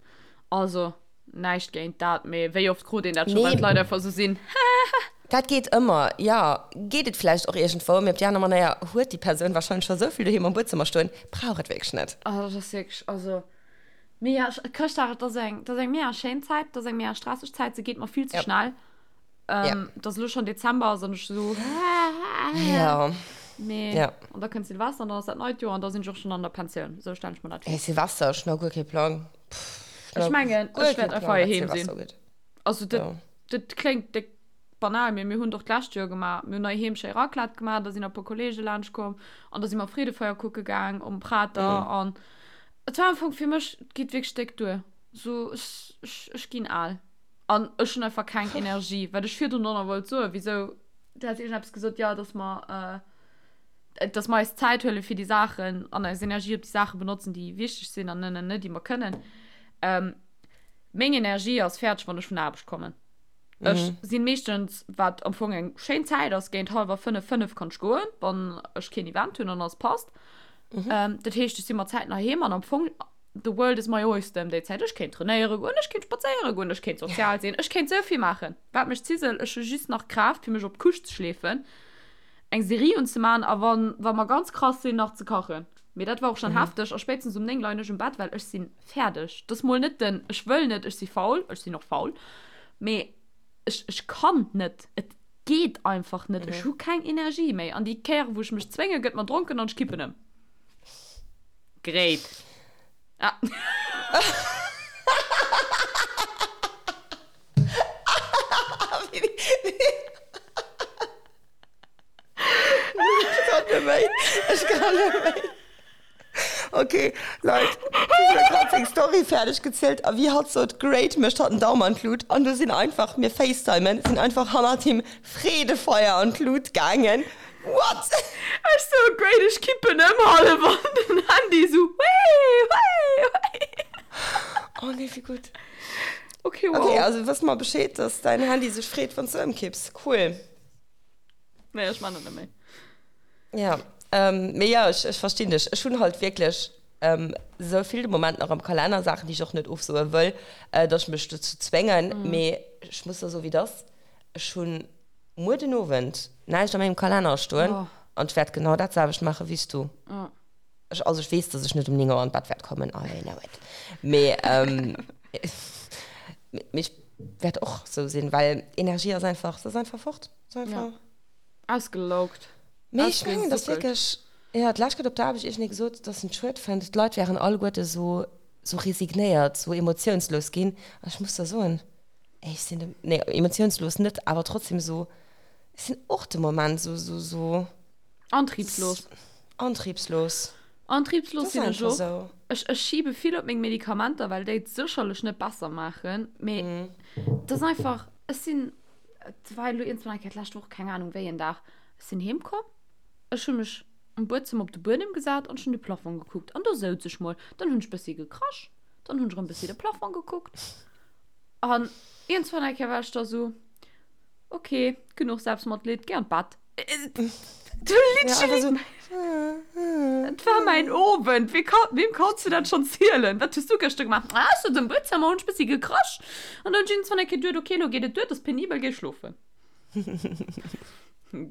Also. Näischt géint dat, mee wéi oft krut een dat scho, well d'Leit einfach esou sinn, Hahaha. Dat geet ëmmer, jo. Geet et vläicht och iergendwou, mee op déi aner Manéier huet déi Persoun warscheinlech scho esou vill doheem am Buedzëmmer stoen, brauch et wierklech net. Oh, dat ass wierklech, also, mee jo, Chrëschtdag, et ass eng, et ass eng mega schéin Zäit, et ass eng mega stresseg Zäit, se geet mer vill ze schnell. Et ass elo schonn Dezember ass an ech esou, Hahaha. Mee, an da kënnt Silvester an dann ass dat neit Joer an da sinn ech och schonn an der Pensioun, esou stellen ech mer dat vir. Silvester, ech hunn nach guer kee Plang. Ech mengen, ech wäert einfach heiheem sinn. Also dat, ja. dat kléngt déck banal, mee mir hunn doch d'lescht Joer gemaach. Mir hunn heiheem schéi Raclette gemaach, da sinn e puer Kollege laanscht komm an da si mer Freedefeier kucke gaang um Prater mhm. an et war am Fong fir mech, et geet wierklech déck duer. So ech, ech, ech ginn al. An ech hunn einfach keng Energie. Wat ech virdrun och nach wollt soen, wisou, du has iergendeppes gesot, jo, dass mer, äh, dass mer eis Zäit huele fir déi Saachen an eis Energie op déi Saache benotzen, déi wichteg sinn an net net, déi mer kënnen. Ähm, meng Energie ass fäerdeg, wann ech vun der Aarbecht kommen. Mhm. Ech sinn meeschtens, wat am Fong eng schéin Zäit ass, géint hallwer fënnef, fënnef kann ech goen, wann ech keen Event hunn an alles passt. Mhm. Ähm, dat heescht, ech si mat Zäiten heiheem an am Fong, the world is my oyster ëm déi Zäit. Ech kéint trainéiere goen, ech kéint spadséiere goen, ech kéint sozial sinn, ech kéint sou vill maachen. Wat mech zisel, ech hu just nach Kraaft, fir mech op d'Couche ze schleefen. eng Serie unzemaan a wann wa mer ganz krass sinn nach ze kachen. Mee dat war och schon mhm. hefteg a spéitstens um 9 leien ech um Bett, well ech sinn fäerdeg. Das mol net den ech wëll net, ech si faul, ech sinn och faul, mee ech, ech kann net. Et geet einfach net. Mhm. Ech hu keng Energie méi. An déi Kéiere wou ech mech zwénge gëtt mer dronken an ech kippen ëm. Great. Ah. Ech kann net méi. Ech kann net méi. Okay, Leit, d'Lisa huet grad seng Story fäerdeg gezielt a wéi hatt sot, great, mécht hatt den Daum an d'Lut an du sinn einfach, mir facetimen, sinn einfach hannert him Freedefeier an d'Lut gaangen. What? Ech sou, great, ech kippen ëm hallef an den Handy sou, wéi, wéi, wéi. Oh nee, wéi gutt. Okay, wow. Okay, also wësse mer Bescheed, dass däin Handy sech freet, wann s du ëmkipps. Cool. Nee, ech man dat net méi. Ja, ähm, mee ja, ech, ech verstinn dech. Ech hunn halt wierklech ähm, sou vill de Moment nach am Kalenner, Saachen, déi ech och net ofsoe wëll, äh, dass ech mech dozou zwéngen. Mm. Mee ech muss der soen, wéi et ass, Ech hunn muer den Owend näischt a mengem Kalenner stoen oh. an ech wäert genau dat selwecht maache wéi s du. Oh. Ech, also ech weess, dass ech net um 9 Auer an d'Bett wäert kommen, I know it. Mee, ähm, mee ech wäert och sou sinn, well Energie ass einfach, se ass einfach fort. Se ass einfach. Ja. Ausgelaugt. Mee ech mengen, dass wierklech, jo, d'lescht huet op der Aarbecht iergendee gesot, dass en et schued fënnt, d'Leit wären alleguerte sou, sou resignéiert, sou emotiounslos ginn. An ech muss der soen, ey, ech sinn de, nee, emotiounslos net, awer trotzdem sou, ech sinn och de Moment sou, sou, sou. Antriebslos. Antriebslos. Antriebslos sinn ech och. Ech, ech schiebe vill op meng Medikamenter, well déi et sécherlech net besser maachen. Mee mm. Dat ass einfach, ech sinn, et war elo iergendwann eng Kéier d'lescht Woch, keng Anung wéi en Dag, ech sinn heem komm, ech hu mech um Buedzëmmer op de Buedem gesat an ech hunn de Plafong gekuckt an do souz ech mol. Dann hunn ech bëssi gekrasch, dann hunn ech erëm bëssi de Plafong gekuckt an iergendwann eng Kéier war ech da sou, ok, genuch Selbstmatleed, géi an d'Bett. Du literally, ja, so, Et war mäin Owend. Wie kann, wem kanns du dat schonn zielen? Wat hues du gëschter gemaach? Ah, ech souz am Buedzëmmer, hunn ech bëssi gekrasch an dann hunn ech iergendwann eng Kéier geduet, ok, elo geet et duer, et ass penibel, géi schlofen.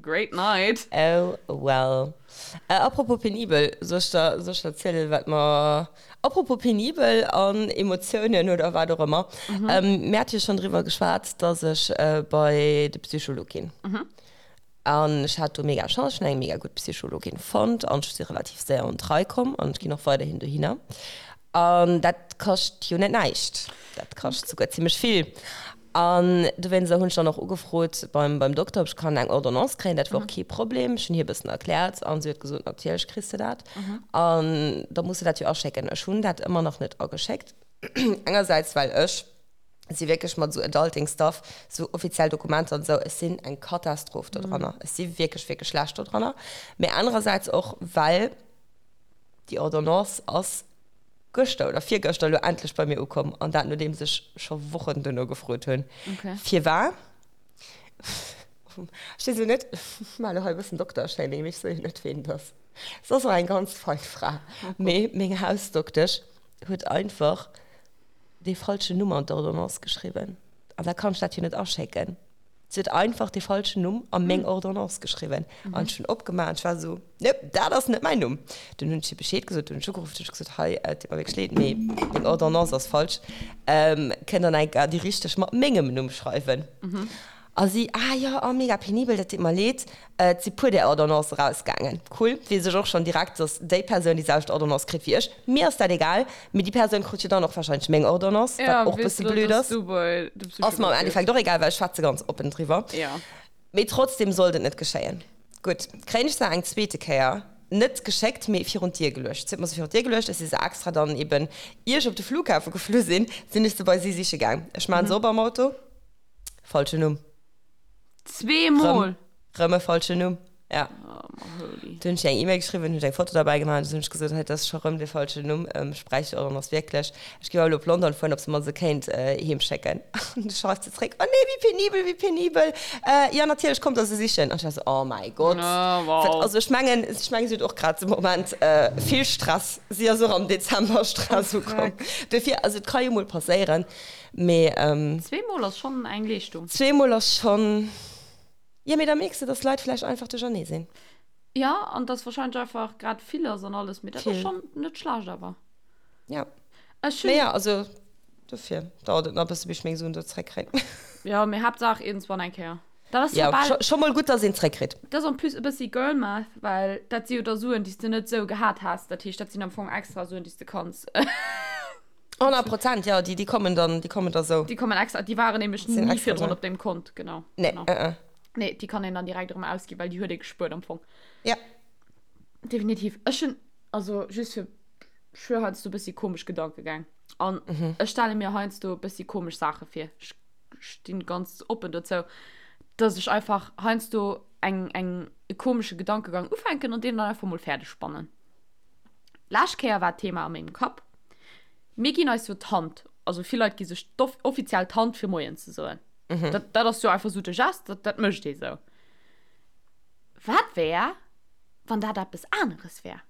Great night. Oh well. Apropos penibel, soll ech der, soll ech der zielen, wat mer, apropos penibel an Emotiounen oder wat och ëmmer, mir hate jo schonn driwwer geschwat, dass ech bei de Psycholog ginn. An ech hat do mega Chance, ech hunn eng mega gutt Psychologin fonnt an ech si relativ séier un d'Rei komm an ech ginn och weiderhin dohinner. An dat kascht jo net näischt, dat kascht souguer zimmlech vill. An dowéinster hunn ech dann och ugefrot beim, beim Dokter, ob ech kann eng Ordonnance kréien. Dat war och kee Problem. Ech hunn hir e bëssen erkläert an si huet gesot, natierlech kriss de dat. An da muss de dat jo aschécken. Ech hunn dat ëmmer nach net ageschéckt. Engersäits well ech si wierklech mat esou Adulting Stuff, esou offiziell Dokumenter an esou, ech sinn eng Katastroph do dranner. Ech si wierklech, wierklech schlecht do dranner. Mee anerersäits och, well déi Ordonnance ass gëschter oder virgëschter elo endlech bei mir ukomm an dat nodeems ech scho Wochen duerno gefrot hunn. Firwar? Ech weess elo net, ech maachen elo hei e bëssen Dokter-Shaming, mee ech soe jo net, ween et ass. Se ass och eng ganz fein Fra, mee meng Hausdoktesch huet einfach dee falschen Numm an d'Ordonnance geschriwwen. An da kann ech dat jo net aschécken. Si huet einfach dee falschen Numm a meng Ordonnance geschriwwen. An ech hunn opgemaach an ech war esou, Nope, dat ass net mäin Numm. Dunn hunn ech hir Bescheed gesot, dunn hunn ech ugeruff, dunn hunn ech gesot, Hei, et deet mer wierklech leed, mee deng Ordonnance ass falsch. Kënnt Der nach eng Kéier déi richteg mat mengem Numm schreiwen? A si, Ah jo, oh mega penibel, dat deet mer leed. Et si puer där Ordonnance erausgaangen. Cool, weess ech och schonn direkt, dass déi Persoun déi selwecht Ordonnance kritt wéi ech. Mir ass dat egal, mee déi Persoun krut jo dann och warscheinlech meng Ordonnance, wat och bësse blöd ass. Ass mer am Endeffekt och egal, well ech schwätze ganz oppen driwwer. Mee trotzdem sollt et net geschéien. Gutt, kréien ech se eng zweete Kéier net geschéckt, mee virun d'Dier geluecht. Si huet mer se virun d'Dier geluecht, ech si se extra dann eben, ier ech op de Flughafe geflu sinn, sinn ech se bei si siche gaang. Ech maachen se op am Auto. Falschen Numm. Zweemol? Rëm e falschen Numm, ja. Oh, my holy. Du hunn ech eng E-Mail geschriwwen, hunn ech eng Foto derbäi gemaach an du hunn ech gesot, hei, dat ass scho rëm de falschen Numm, ech bräicht déi Ordonnance wierklech. Ech géif awer elo op London fueren, ob se mer se kéint heem schécken. An du schreift se zréck, oh nee, wéi penibel, wéi penibel, jo, natierlech, kommt der se sichen. An ech war esou, oh mäi Gott. Oh, wow. Also ech mengen, ech mengen, si huet och grad de Moment vill Stress. Si ass och am Dezember Stress ukomm. Dofir, also et ka jo mol passéieren. Mee. Zweemol ass schonn eng Leeschtung. Zweemol ass schonn. Jo, mee da mierks de, dass d'Leit vläicht einfach duerchernee sinn. Jo, an dass warscheinlech einfach grad vill ass an alles. Mee dat ass schonn net schlecht awer. Jo. Ech hunn. Mee jo, also dofir dauert et nach e bësse bis ech meng Suen do zréckkréien. Jo, mee Haaptsaach iergendswann eng Kéier. Dat ass jo bal. Scho mol gutt, dass een zréckkritt. Dat ass en plus e bëssi Girl Math, well dat si jo da Suen, déi s de net esou gehat häss. Dat heescht, dat sinn am Fong extra Suen, déi s de kanns. 100 Prozent, ja, déi, déi kommen dann, déi kommen da sou. Déi kommen extra, déi waren nämlech Sinn ni extra virdrun sou. op deem Kont, genau. Nee, genau. äh, äh. Nee, déi kann een dann direkt erëm ausginn, well déi huet ee gespuert am Fong. Ja. Definitiv. Ech hunn, also just fir, ech hu heiansdo e bëssi komesch Gedankegäng. An Mhm. ech stelle mir heiansdo e bëssi komesch Saache vir. Ech stinn ganz oppen dozou, dass ech einfach heiansdo eng, eng, e komesche Gedankegang ufänken an deen dann einfach mol fäerdeg spannen. Lescht Kéier war d'Thema a mengem Kapp, Mir ginn eis jo d'Hand, also vill Leit gi sech offiziell d'Hand fir Moien ze soen. Mhm. Dat, dat ass jo einfach sou de Gest, dat, dat mécht ee sou. Wat wär, wann dat eppes aneres wär?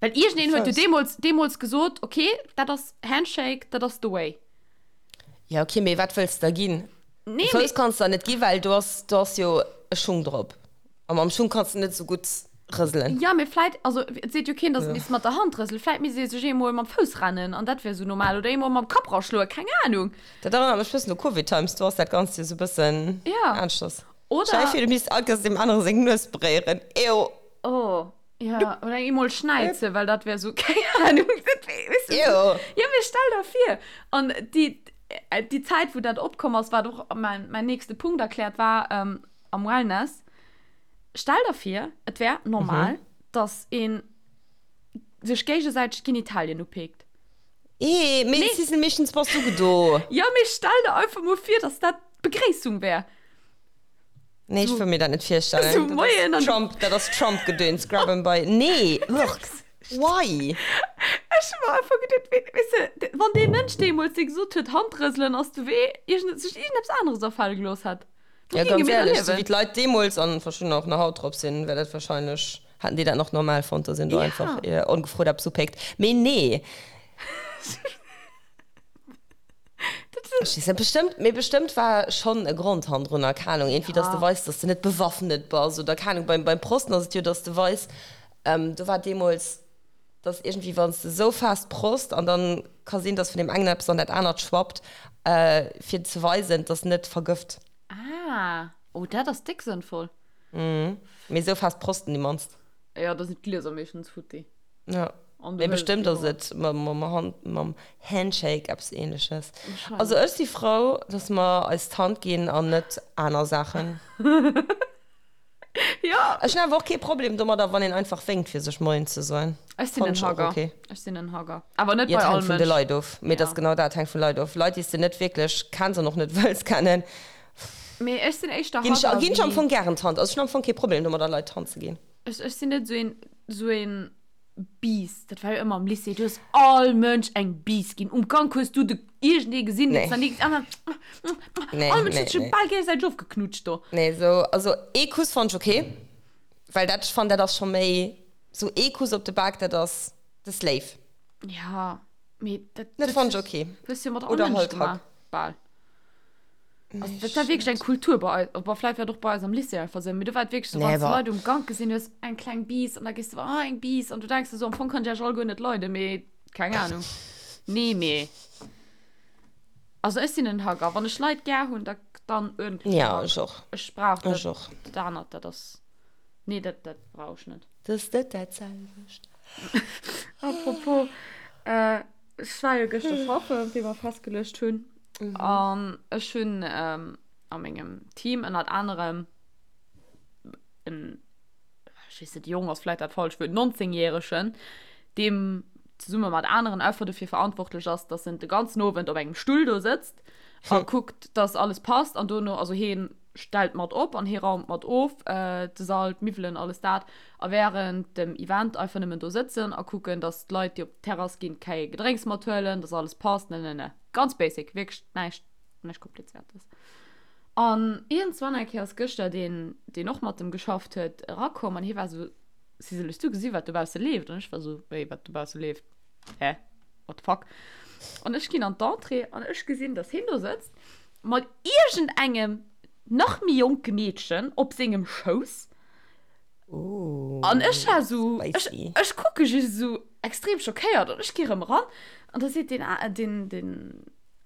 Well iergendeen huet jo deemools, deemools gesot, okay, dat ass Handshake, dat ass the way. Ja, okay, mee wat wëlls de da ginn? Nee, Fouss kanns de der net ginn, well do ass, do ass jo e Schung drop. A mam Schung kanns de net esou gutt rëselen. Ja, mee vläit, also et seet jo keen, dass e misst mat der Hand rëselen. Vläit misst ee sech eemol mam Fouss rennen an dat wär esou normal. Oder eemol mam Kapp raschloen, keng Anung. Dat erënnert mech bëssen u Covid Times, do ass dat Ganzt jo esou bëssen Ja. aneschters. Oder. Stell dir vir, du misst all Kéiers deem anere seng Nues beréieren. Ew. Oh, ja. Oder eemol schnäizen, well dat wär esou, keng Anung. Dat wär, weess du, Ew. Ja, mee stell der vir. An déi, déi Zäit, wou dat opkomm ass, wat och mäin, mäin nächste Punkt erkläert war, am Wellness, stell der vir, et wär normal, mhm. dass een sech géigesäiteg d'Genitalien upeekt. Ee, mee Sissel, meeschtens bass du do. Jo, mee stell der einfach mol vir, dass dat d'Begréissung wär. Nee, ech wëll mir dat net virstellen. Sou, moien an. Trump, dat ass Trump-Gedöns, grab 'em by. Nee, ugh, why? Ech hu mer einfach geduet, weess de, wann dee Mënsch deemools, dee gesot huet, Handrëselen ass de Wee, iergend, sech iergendeppes aneres afale gelooss hätt. Wou Ja, géinge ganz mir da ehrlech, sou wéi liewen? d'Leit deemools an verschiddener och nach haut drop sinn, wär dat wahrscheinlech, hätten déi dat nach normal fonnt, dass een do einfach Ja. ongefrot eppes upéckt. Mee nee. Dat Ech weess net, bestëmmt, mee bestëmmt war schonn e Grond hannendrunner, keng Ahnung, iergendwéi, dass de Ja. weis, dass de net bewaffnet bass oder keng Ahnung. Beim, beim Prosten ass et jo, dass de weis, do war deemools, dass iergendwéi, wann s de esou fest prost an dann ka sinn, dass vun deem engen eppes an dat anert schwappt, fir ze weisen, dass net vergëft. Ah, oh dat ass déck sënnvoll. Mee esou fest prosten déi mannst. Jo, da sinn d'Glieser meeschtens futti. Jo, mee bestëmmt ass et mam Handshake eppes Ähnleches. Also ech si frou, dass mer eis d'Hand ginn an net aner Saachen. Jo. Ech hunn awer och kee Problem domadder, wann een einfach wénkt fir sech Moien ze soen. Ech sinn Fannen en ech och Hugger. ok. Ech sinn en Hugger. Awer net Jo, bei et all hänkt vun de Mënsch. Leit of. Mee et ass Ja. genau dat, et hänkt vun Leit of. Leit, déi s de net wierklech kenns an och net wëlls kennen, Mee ech sinn éischter ginn ech, Hugger ginn ech am wéi. Fong gären d'Hand. Also ech hunn am Fong kee Problem domadder, Leit d'Hand ze ginn. Ech, ech sinn net esou een, esou een Biiss. Dat war jo ëmmer am Lycée. Du hues all Mënsch eng Biiss ginn. Um Gank hues du de iergendee gesinn, Nee. deen s nach ni Nee, All Mënsch nee, huet sech nee. bal géigesäiteg ofgeknutscht do. Nee, esou, also ee Kuss fannt ech ok, well dat, ech fannen, dat ass scho méi, esou ee Kuss op de Bak, dat ass, dat ass léif. Ja, mee dat, Dat dat fannt ech ok. hues du jo mat all Oder Mënsch halt gemaach, Hack. bal. Also, dat war wierklech eng Kultur bei eis, bon, vläicht war et och bei eis am Lycée einfach esou, mee do war et wierklech esou, Nee, wann s de awer. Leit um Gank gesinn hues, eng kleng Biiss an da gees du, ah, eng Biiss an du denks der esou, am Fong kann ech iech all guer net leiden, mee keng Ahnung. Nee, mee also ech sinn en Hugger. Wann ech Leit gär hunn, da dann uerdentlech Ja, Hug. ech och. Ech brauch dat, Ech och. dat anert, dat ass, nee, dat, dat brauch ech net. Dat ass net dat selwecht. Apropos, ech war jo gëschter schaffen, wéi mer festgeluecht hunn. An ech hunn a mengem Team ënnert anerem en, ech weess net, jong ass vläicht dat falscht Wuert, 19 Järegen, deem zesumme mat aneren einfach dofir verantwortlech ass, dass en de ganzen Owend op engem Stull do sëtzt a kuckt, dass alles passt an dono, also hien stellt mat op an hie raumt mat of, de Sall, d'Miwwelen, alles dat, a wärend dem Event einfach nëmmen do sëtzen a kucken, dass d'Leit, déi op d'Terrass ginn, kei Gedrénks mathuelen, dass alles passt, ne ne ne. Ganz basic, wierklech näischt, näischt Komplizéiertes. An iergendzwann eng Kéier ass gëschter deen, deen och mat em geschafft huet, erakomm an hie war esou, Sisel, hues du gesi wat dobausse leeft? An ech war esou, Wéi, wat dobausse leeft? Hä? What the fuck? An ech ginn an d'Entrée an ech gesinn, dass hien do sëtzt mat iergendengem nach méi jonke Meedchen op sengem Schouss. An ech war esou, ech, ech kucke just esou extrem schockéiert an ech gi rëm eran an da seet deen, deen, deen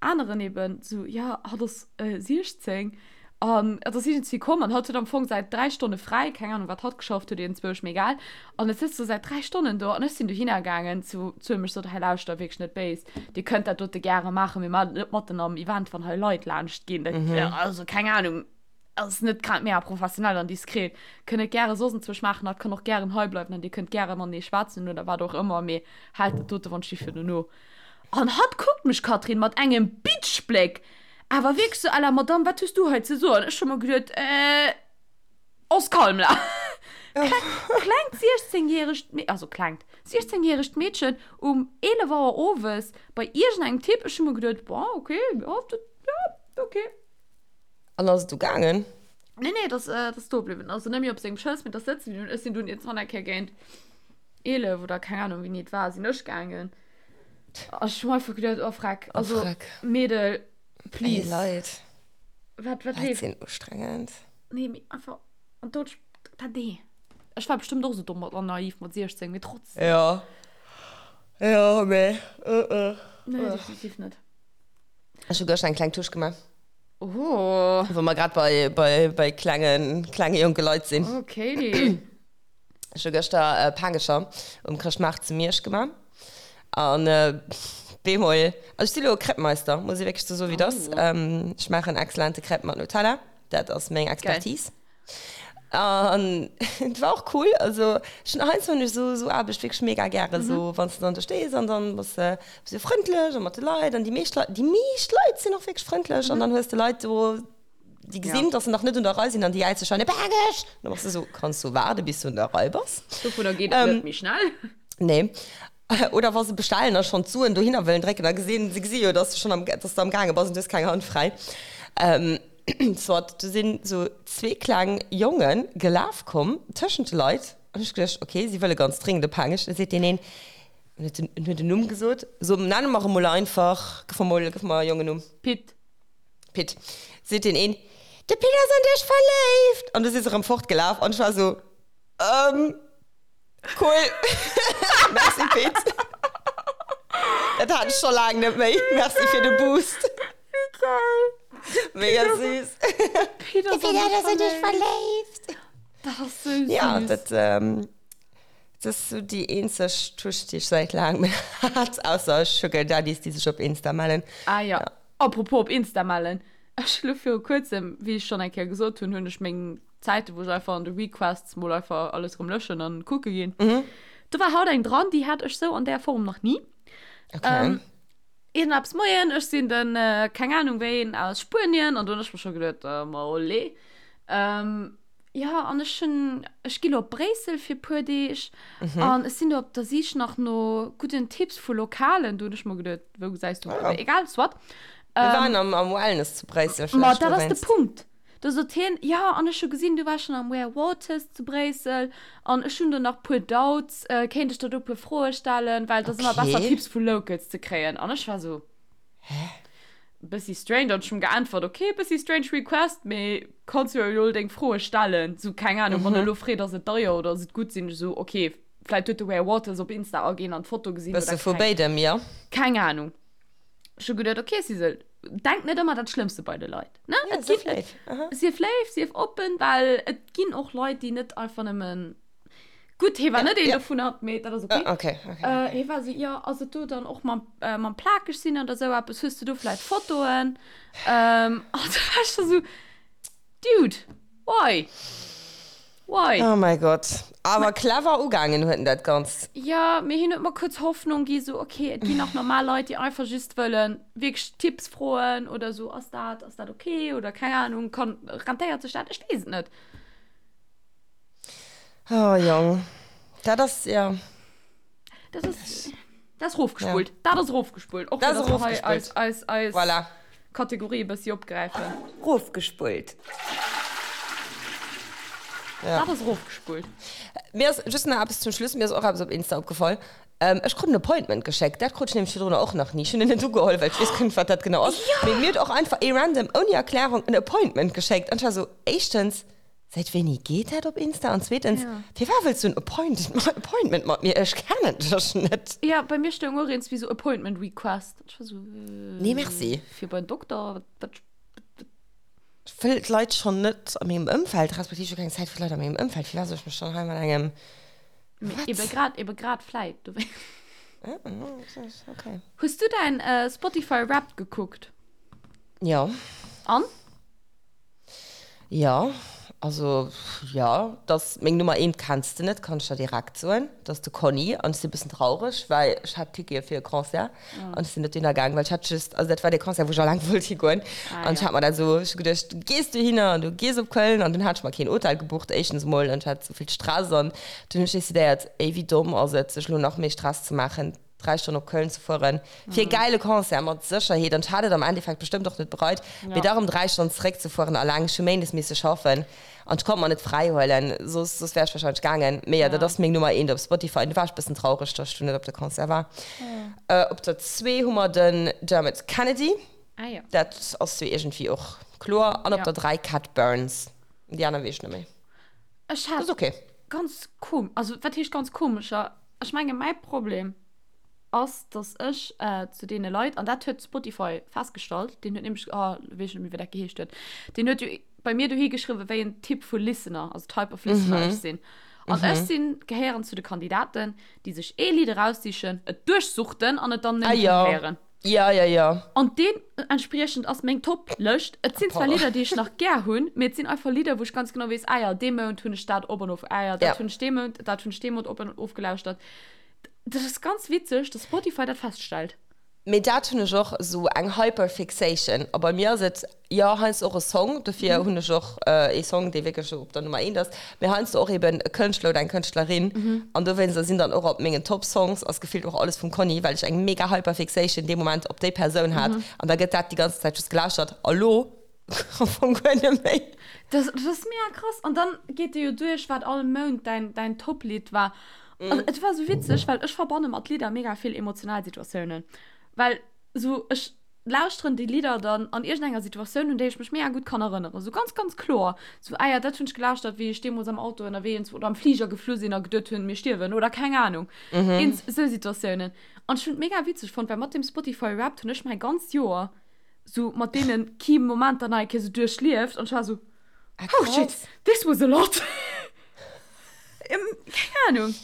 aneren eben esou, ja, hatt ass 16 an et ass iergendwéi komm an hatt huet am Fong säit 3 Stonne fräi, keng Ahnung wat hatt geschafft huet, iergendzwousch, mee egal. An et sëtzt do säit 3 Stonnen do an ech sinn dohinner gaangen zu, zu him, ech sot, hei lauschter, wierklech net béis, dir kënnt dat dote gäre maachen, mee maacht et net matten am Event, wann hei Leit laanscht ginn, dat, also keng Ahnung. Ass net grad mega professionell an diskret. Kënnt et gäre soss enzwousch maachen, hatt kann och gären hei bleiwen an dir kënnt gäre matenee schwätzen oder wat och ëmmer, mee haalt dat dote wann Schiff virdu no. An hatt kuckt mech, Catherine, mat engem Bitchbléck, awer wierklech sou à la Madame, wat hues du hei ze soen? Ech hu mer geduet, äh, on se calme là. Klengt 16 järegt, also klengt, 16 järegt Meedchen um 11 Auer owes bei iergendengem Typ, ech hu mer geduet, bon, okay, jo, dat, jo, okay. An ass et du gaangen? Nee, nee, dat ass do bliwwen. Also net méi op sengem Schouss, mee dat ass sëtze bliwwen. Ech sinn dunn iergendwann eng Kéier géint 11 oder keng Ahnung wéini et war, sinn ech gaangen. A ech hu mer einfach geduet, oh freck, also Meedel, please. Ey Leit. Wat, wat Leit leeft? sinn ustrengend. Nee, mee einfach, an do, dat, nee. Ech war bestëmmt och esou domm an naiv mat 16, mee trotzdem. Jo, jo, mee, uh, uh. Nee, definitiv net. Ech hu gëschter eng kleng Touche gemaach. Oh. Wou mer grad bei, bei, bei klengen, klenge jonke Leit sinn. Okay. Ech hu gëschter Paangecher um Chrëschtmaart zu Miersch gemaach. An äh, bemol, also ech si lo e Crêpe-Meister, muss ech wierklech sou soen, wéi et ass. Oh. Ech maachen exzellente Crêpe mat Nutella. Dat ass meng Expertise. An et war och cool, also ech hunn heiansdo hunn ech esou esou Aarbecht wierklech mega gären, esou wann s de dann do stees an dann bass de esou frëndlech a mat de Leit an déi meescht Leit, déi meescht Leit sinn och wierklech frëndlech an dann hues de Leit do, déi gesinn, dass se nach net un der Rei sinn an déi jäize schonn, Paangech! An da bass de esou, Kanns du waarde bis du un der Rei bass? Dovunner geet et net méi schnell. Nee. Oder wa se bestellen a schonn d'Suen dohinner wëllen drécken a gesinn, se gesi jo, dass du schonn am, dass du am gaange bass an du hues keng Hand fräi. Soit, do sinn esou zwee kleng Jonge gelaf komm tëschent de Leit an ech geduecht, ok, si wëlle ganz dringend e Paangech. Da seet deen een, en huet den, en huet en Numm gesot, so nenne mer e mol einfach, gëff mer mol, gëff mer e Jongennumm. Pit. Pit. Seet deen een, de Pit ass an dech verléift! An du si se erëm fortgelaf an ech war esou, ähm. Cool. Merci Pit. Dat hat ech scho laang net méi. Merci fir de Boost. Wéi geil. Mega süß. Pit ass an dech verléift. Dat ass sou süß. Ja, dat, ähm, dat ass sou déi eenzeg Touche, déi ech säit laangem hat, ausser Sugar Daddies, déi sech op Insta mellen. Ah ja. Apropos op Insta mellen. Ech hu lo viru kuerzem, wéi ech schonn eng Kéier gesot hunn, hunn ech meng Zäiten, wou ech einfach an de Requests mol einfach alles rëm löschen an kucke ginn. Mhm. Do war haut eng dran, déi hat ech sou an där Form nach ni. Okay. Ähm, Iergendeppes, Moien, ech sinn den, äh, keng Ahnung wéin aus Spuenien an do hunn ech mer scho geduet, äh, ma olé. Ähm, ja, an ech hunn, ech gi lo op Bréissel fir puer Deeg mhm. an ech sinn do op der Sich nach no gudden Tipps vu Lokalen. Do hunn ech mer geduet, wou gesäis du? Ja. Egal, soit. Wir ähm, waren am, am Wellness zu Bréissel. Ma dat ass de Punkt. Do sot hien, Jo, an ech hu gesinn, du waars schonn am Ware Waters zu Bréissel an ech hunn do nach puer Doubts, kéint ech der do puer Froe stellen, well et ass ëmmer besser Tipps vu Locals ze kréien. An ech war sou, Hä? Bëssi strange. An ech hunn geäntwert, Ok, bëssi strange request, mee kanns jo elo deng Froe stellen. Sou, keng Ahnung, wann e elo freet, ass et deier oder ass et gutt, sinn ech sou, ok, vläit huet de Ware Waters op Insta aginn an d'Foto gesinn oder Bësse vu béidem, jo. Keng Ahnung. Ech hu geduet, ok, Sisel, denk net ëmmer dat Schlëmmste bei de Leit. Ne? Ja, Et sief ginn, léif. Aha. sief léif, sief oppen, well et ginn och Leit, déi net einfach nëmmen. Gutt, hie war Ja, net een ja. dovunner, mee dat ass ok. Ah, okay, okay. Äh, hie war esou, jo, ass et do dann och mam, äh, mam plakeg sinn oder esou eppes, hues du do vläit Fotoen? Ähm, an da war ech scho sou, Dude, why? Why? Oh mäi Gott. Awer clever ugaangen huet en dat Ganzt. Jo, mee hien huet mer kuerz Hoffnung gi, sou, ok, et ginn nach normal Leit, déi einfach just wëllen wierklech Tipps froen oder sou, ass dat, ass dat ok oder keng Ahnung, kann, rentéiert sech dat? Ech weess et net. Oh Jong, dat ass, jo. Dat ass, dat ass rofgespullt. Ja. Dat ass rofgespullt. Och Dat fir ass dass mer hei rofgespullt. eis, eis, eis Voilà. Kategorie e bëssi opgräifen. Rofgespullt. Ja. Dat ass rofgespullt. Mir ass just nach eppes zum Schluss, mir ass och eppes op Insta opgefall. Ähm, ech krut en Appointment geschéckt. Dat krut ech nämlech virdrunner och nach ni. Ech hunn en net ugeholl, well ech weess guer net, wat dat genau ass. Ja! Mee mir huet och einfach ee random, ouni Erklärung, en Appointment geschéckt. An ech war esou, éischtens, Säit wéini geet dat op Insta? An zweetens, Ja. firwat wëlls du en Appointment mat mir? Ech kennen dech net. Ja, bei mir stoung och eens wéi sou Appointment Request. Ech war sou, äh, Nee, merci. Fir bei den Dokter? Wat, wat, wat? Ech wëll d'Leit schonn net a mengem Ëmfeld, respektiv ech hu keng Zäit fir d'Leit a mengem Ëmfeld. Firwat soll ech mech dann hei mat engem, Mee Wat? ebe grad, ebe grad vläit dowéinst. Ah, okay. Hues du däin Spotify Wrapped gekuckt? Jo. An? Jo, also jo, dass meng Nummer eent kenns de net, kann ech der direkt soen, dat ass de Conny an ech sinn e bëssen traureg, well ech hat Tickete fir e Concert an ech sinn net dohinner gaang, well ech hat just, also dat war dee Concert wou ech alleng wollt higoen an ech hat mer dat esou, ech hu geduecht, du gees dohinner an du gees op Köln an dunn hat ech mer keen Hotel gebucht, éischtens emol an ech hat esou vill Stress an dunn hunn ech decidéiert, ey wéi domm ass et sech elo nach méi Stress ze maachen. 3 Stonnen op Köln ze fueren fir e gäile Concert mat Sécherheet an ech hat et am Endeffekt bestëmmt och net bereit, mee da rëm 3 Stonnen zeréck ze fueren alleng, ech hu méindes misse schaffen an ech konnt mer net fräi huelen, soss soss wär ech wahrscheinlech gaangen. Mee jo, dat ass meng Nummer eent op Spotify an du war ech bëssen traureg, dass ech du net op de Concert war. Op der zwee hu mer den Dermot Kennedy, dat ass jo iergendwéi och kloer, an op der 3 Cat Burns, déi aner weess ech net méi. Ech hat Ass ok. ganz kom, also wat heescht ganz komescher, Ech menge mäi Problem ass, datt ech zu deene Leit, an dat huet Spotify festgestallt, deen huet nämlech, oh elo weess ech net méi wéi dat geheescht huet, deen huet jo bei mir dohi geschriwwen, wéi en Typ vu Listener, also Type of Listener ech sinn. An ech sinn, gehéieren zu de Kandidaten, déi sech ee Lidd eraussichen, et duerchsuchten an et dann Ah nëmme jo. héieren. Ja, ja, ja. An deementspriechend ass meng Top-Lëscht. Et sinn zwar Lidder, déi ech nach gär hunn, mee et sinn einfach Lidder, wou ech ganz genau weess, ah ja, dee Mount hunn ech dat op an of, ah ja, dat hunn ech dee Mount, dat hunn ech dee Mount op an ofgelauschtert. Dat ass ganz witzeg, dass Spotify dat feststellt. Mee dat hunn ech och, esou eng Hyperfixation. A bei mir ass et, jo, heiansdo och e Song, dofir hunn ech och ee Song, dee wierklech esou op der Nummer eent ass, mee heiansdo och eben e Kënschtler oder eng Kënschtlerin. An dowéinster sinn dann och op mengen Top Songs ass gefillt och alles vum Conny, well ech eng mega Hyperfixation dee Moment op déi Persoun hat. An da gëtt dat déi ganze Zäit just gelauschtert. A lo am Fong guer net méi. Dat ass mega krass. An dann geet de jo duerch, wat all Mount däin, däin Top-Lidd war. An et war sou witzeg, well ech verbanne mat Lidder mega vill emotional Situatiounen. Well sou ech lauschteren déi Lidder dann an iergendenger Situatioun, un déi ech mech mega gutt kann erënneren. Sou ganz, ganz kloer. Sou, ah ja, dat hunn ech gelauschtert, wéi ech deemools am Auto ënnerwee oder am Fliger geflu sinn a geduet hunn, mir stierwen oder keng Anung. Iergend sou Situatiounen. An ech hunn et mega witzeg fonnt, well mat dem Spotify Wrapped hunn ech mäi ganzt Joer sou mat deene Key Momenter nach eng Kéier sou duerchlieft an ech war sou, oh shit, this was a lot. Keng Ahnung.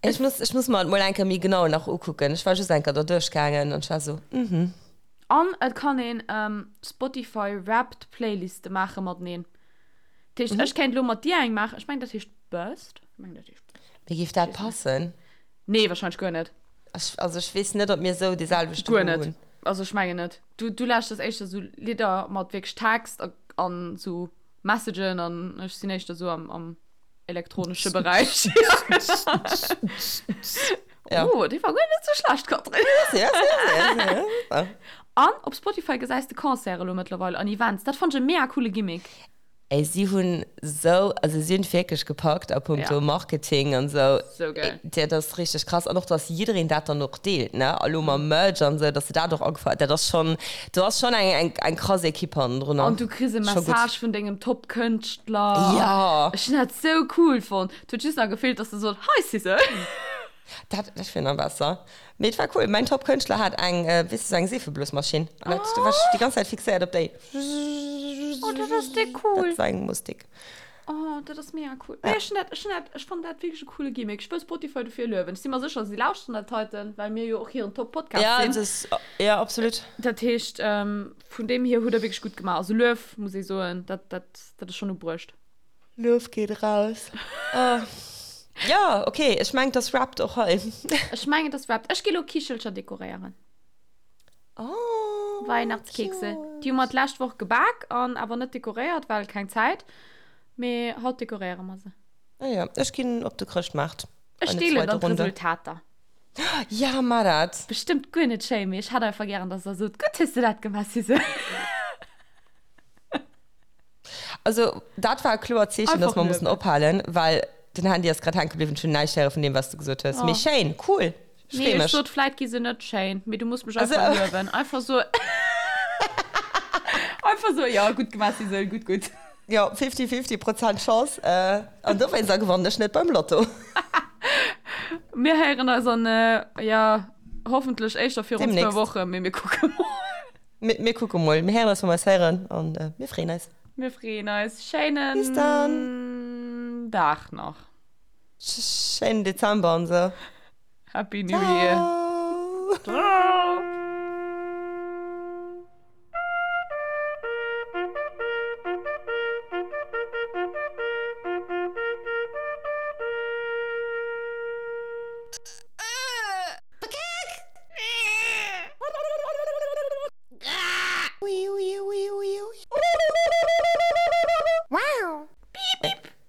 Ech muss, ech muss mer et mol eng Kéier méi genau nach ukucken. Ech war just eng Kéier der duerchgaangen an ech war sou, mhm. An et kann een Spotify Wrapped Playliste maache mateneen. Dat heescht, ech kéint elo mat dir eng maachen. Ech mengen, dat heescht Best. Ech mengen, dat heescht Best. Mir géif dat passen? Nee, wahrscheinlech guer net. Ech, also ech weess net, ob mir sou dee selwechte Guer net. hunn. Also ech mengen net. Du, du lauschters éischter sou Lidder mat wierklech Text a, an sou Messagen an ech sinn éischter sou am, am elektronesche Beräich. Ja. Oh, dee war guer net sou schlecht, Catherine. Ja, ja, ja, ja. An op Spotify gesäis de Concerte elo mëttlerweil an Events. Dat fannt ech e mega coole Gimmick. Ey, si hunn sou, also si hunn et wierklech gepackt a punkto Ja. Marketing an sou. Sou geil. Dat ass richteg krass. An och, dass jiddereen dat dann och deelt, ne? A lo mam Merch an sou, dass se dat och agefouert, dat ass schonn, do ass schonn eng, eng, eng krass Equipe hannendrunner. An du kriss e Scho gutt. Message vun dengem Top-Kënschtler. Ja. Ech hunn dat sou cool fonnt. Et huet just nach gefeelt, dass de sot, Hi Sissel. Dat, dat wier nach besser. Mee et war cool. Mäin Top-Kënschtler hat eng, weess de, sou eng Seefeblosmaschinn. An dat, do war ech déi ganz Zäit fixéiert op déi. Oh, dat ass déck cool. Dat war eng Mustik. Oh, dat ass mega cool. Nee, ech hunn dat, ech hunn dat, ech fannen dat wierklech e coole Gimmick. Ech wëll Spotify dofir luewen. Ech si mer sécher, si lauschteren dat heiten, well mir jo och hiren Top-Podcast Ja, sinn. dat ass, ja, absolut. Dat heescht, vun deem hier hutt der wierklech gutt gemaach. Also Luef, muss ee soen, dat, dat, dat ass schonn ubruecht. Luef geet raus. Oh. Ja, okay, ech mengen, et ass wrapped och hei. Ech mengen, et ass wrapped. Ech gi lo Kichelcher dekoréieren. Oh, Weihnachtskekse. cute. Déi hu mer d'lescht Woch gebak an awer net dekoréiert, well keng Zäit. Mee haut dekoréiere mer se. Ah ja, ech ginn op de Chrëschtmaart. Ech Eine deelen zweite dann Runde. d'Resultater. Ja, mar dat. Bestëmmt guer net schéin, mee ech hätt einfach gären, dass der sot, Gutt hues de dat gemaach, Suse. Also dat war e kloert Zeechen, dass mer mussen ophalen, well den Handy ass grad hänke bliwwen. Ech hunn näischt héiere vun deem, wat s du gesot hues. Mee schéin, cool, ech Nee, free ech mech. sot, vläit gi se net schéin, mee du muss mech Also. einfach luewen. Einfach so, einfach so, jo, gutt gemaach, Sisel, gutt, gutt. Jo, fifty-fifty Prozent Chance. An dowéinster gewannen ech net beim Lotto. Mir héieren eis an, jo, hoffentlech éischter virun zwou Demnächst. Wochen, mee mir kucke mol. Mir, mir kucke mol. Mir héieren eis, wa mer eis héieren. An mir freeën eis. Mir freeën eis. Schéinen Bis dann. Dag nach. Schéinen Dezember an sou. Happy New Year. Ciao. Ciao.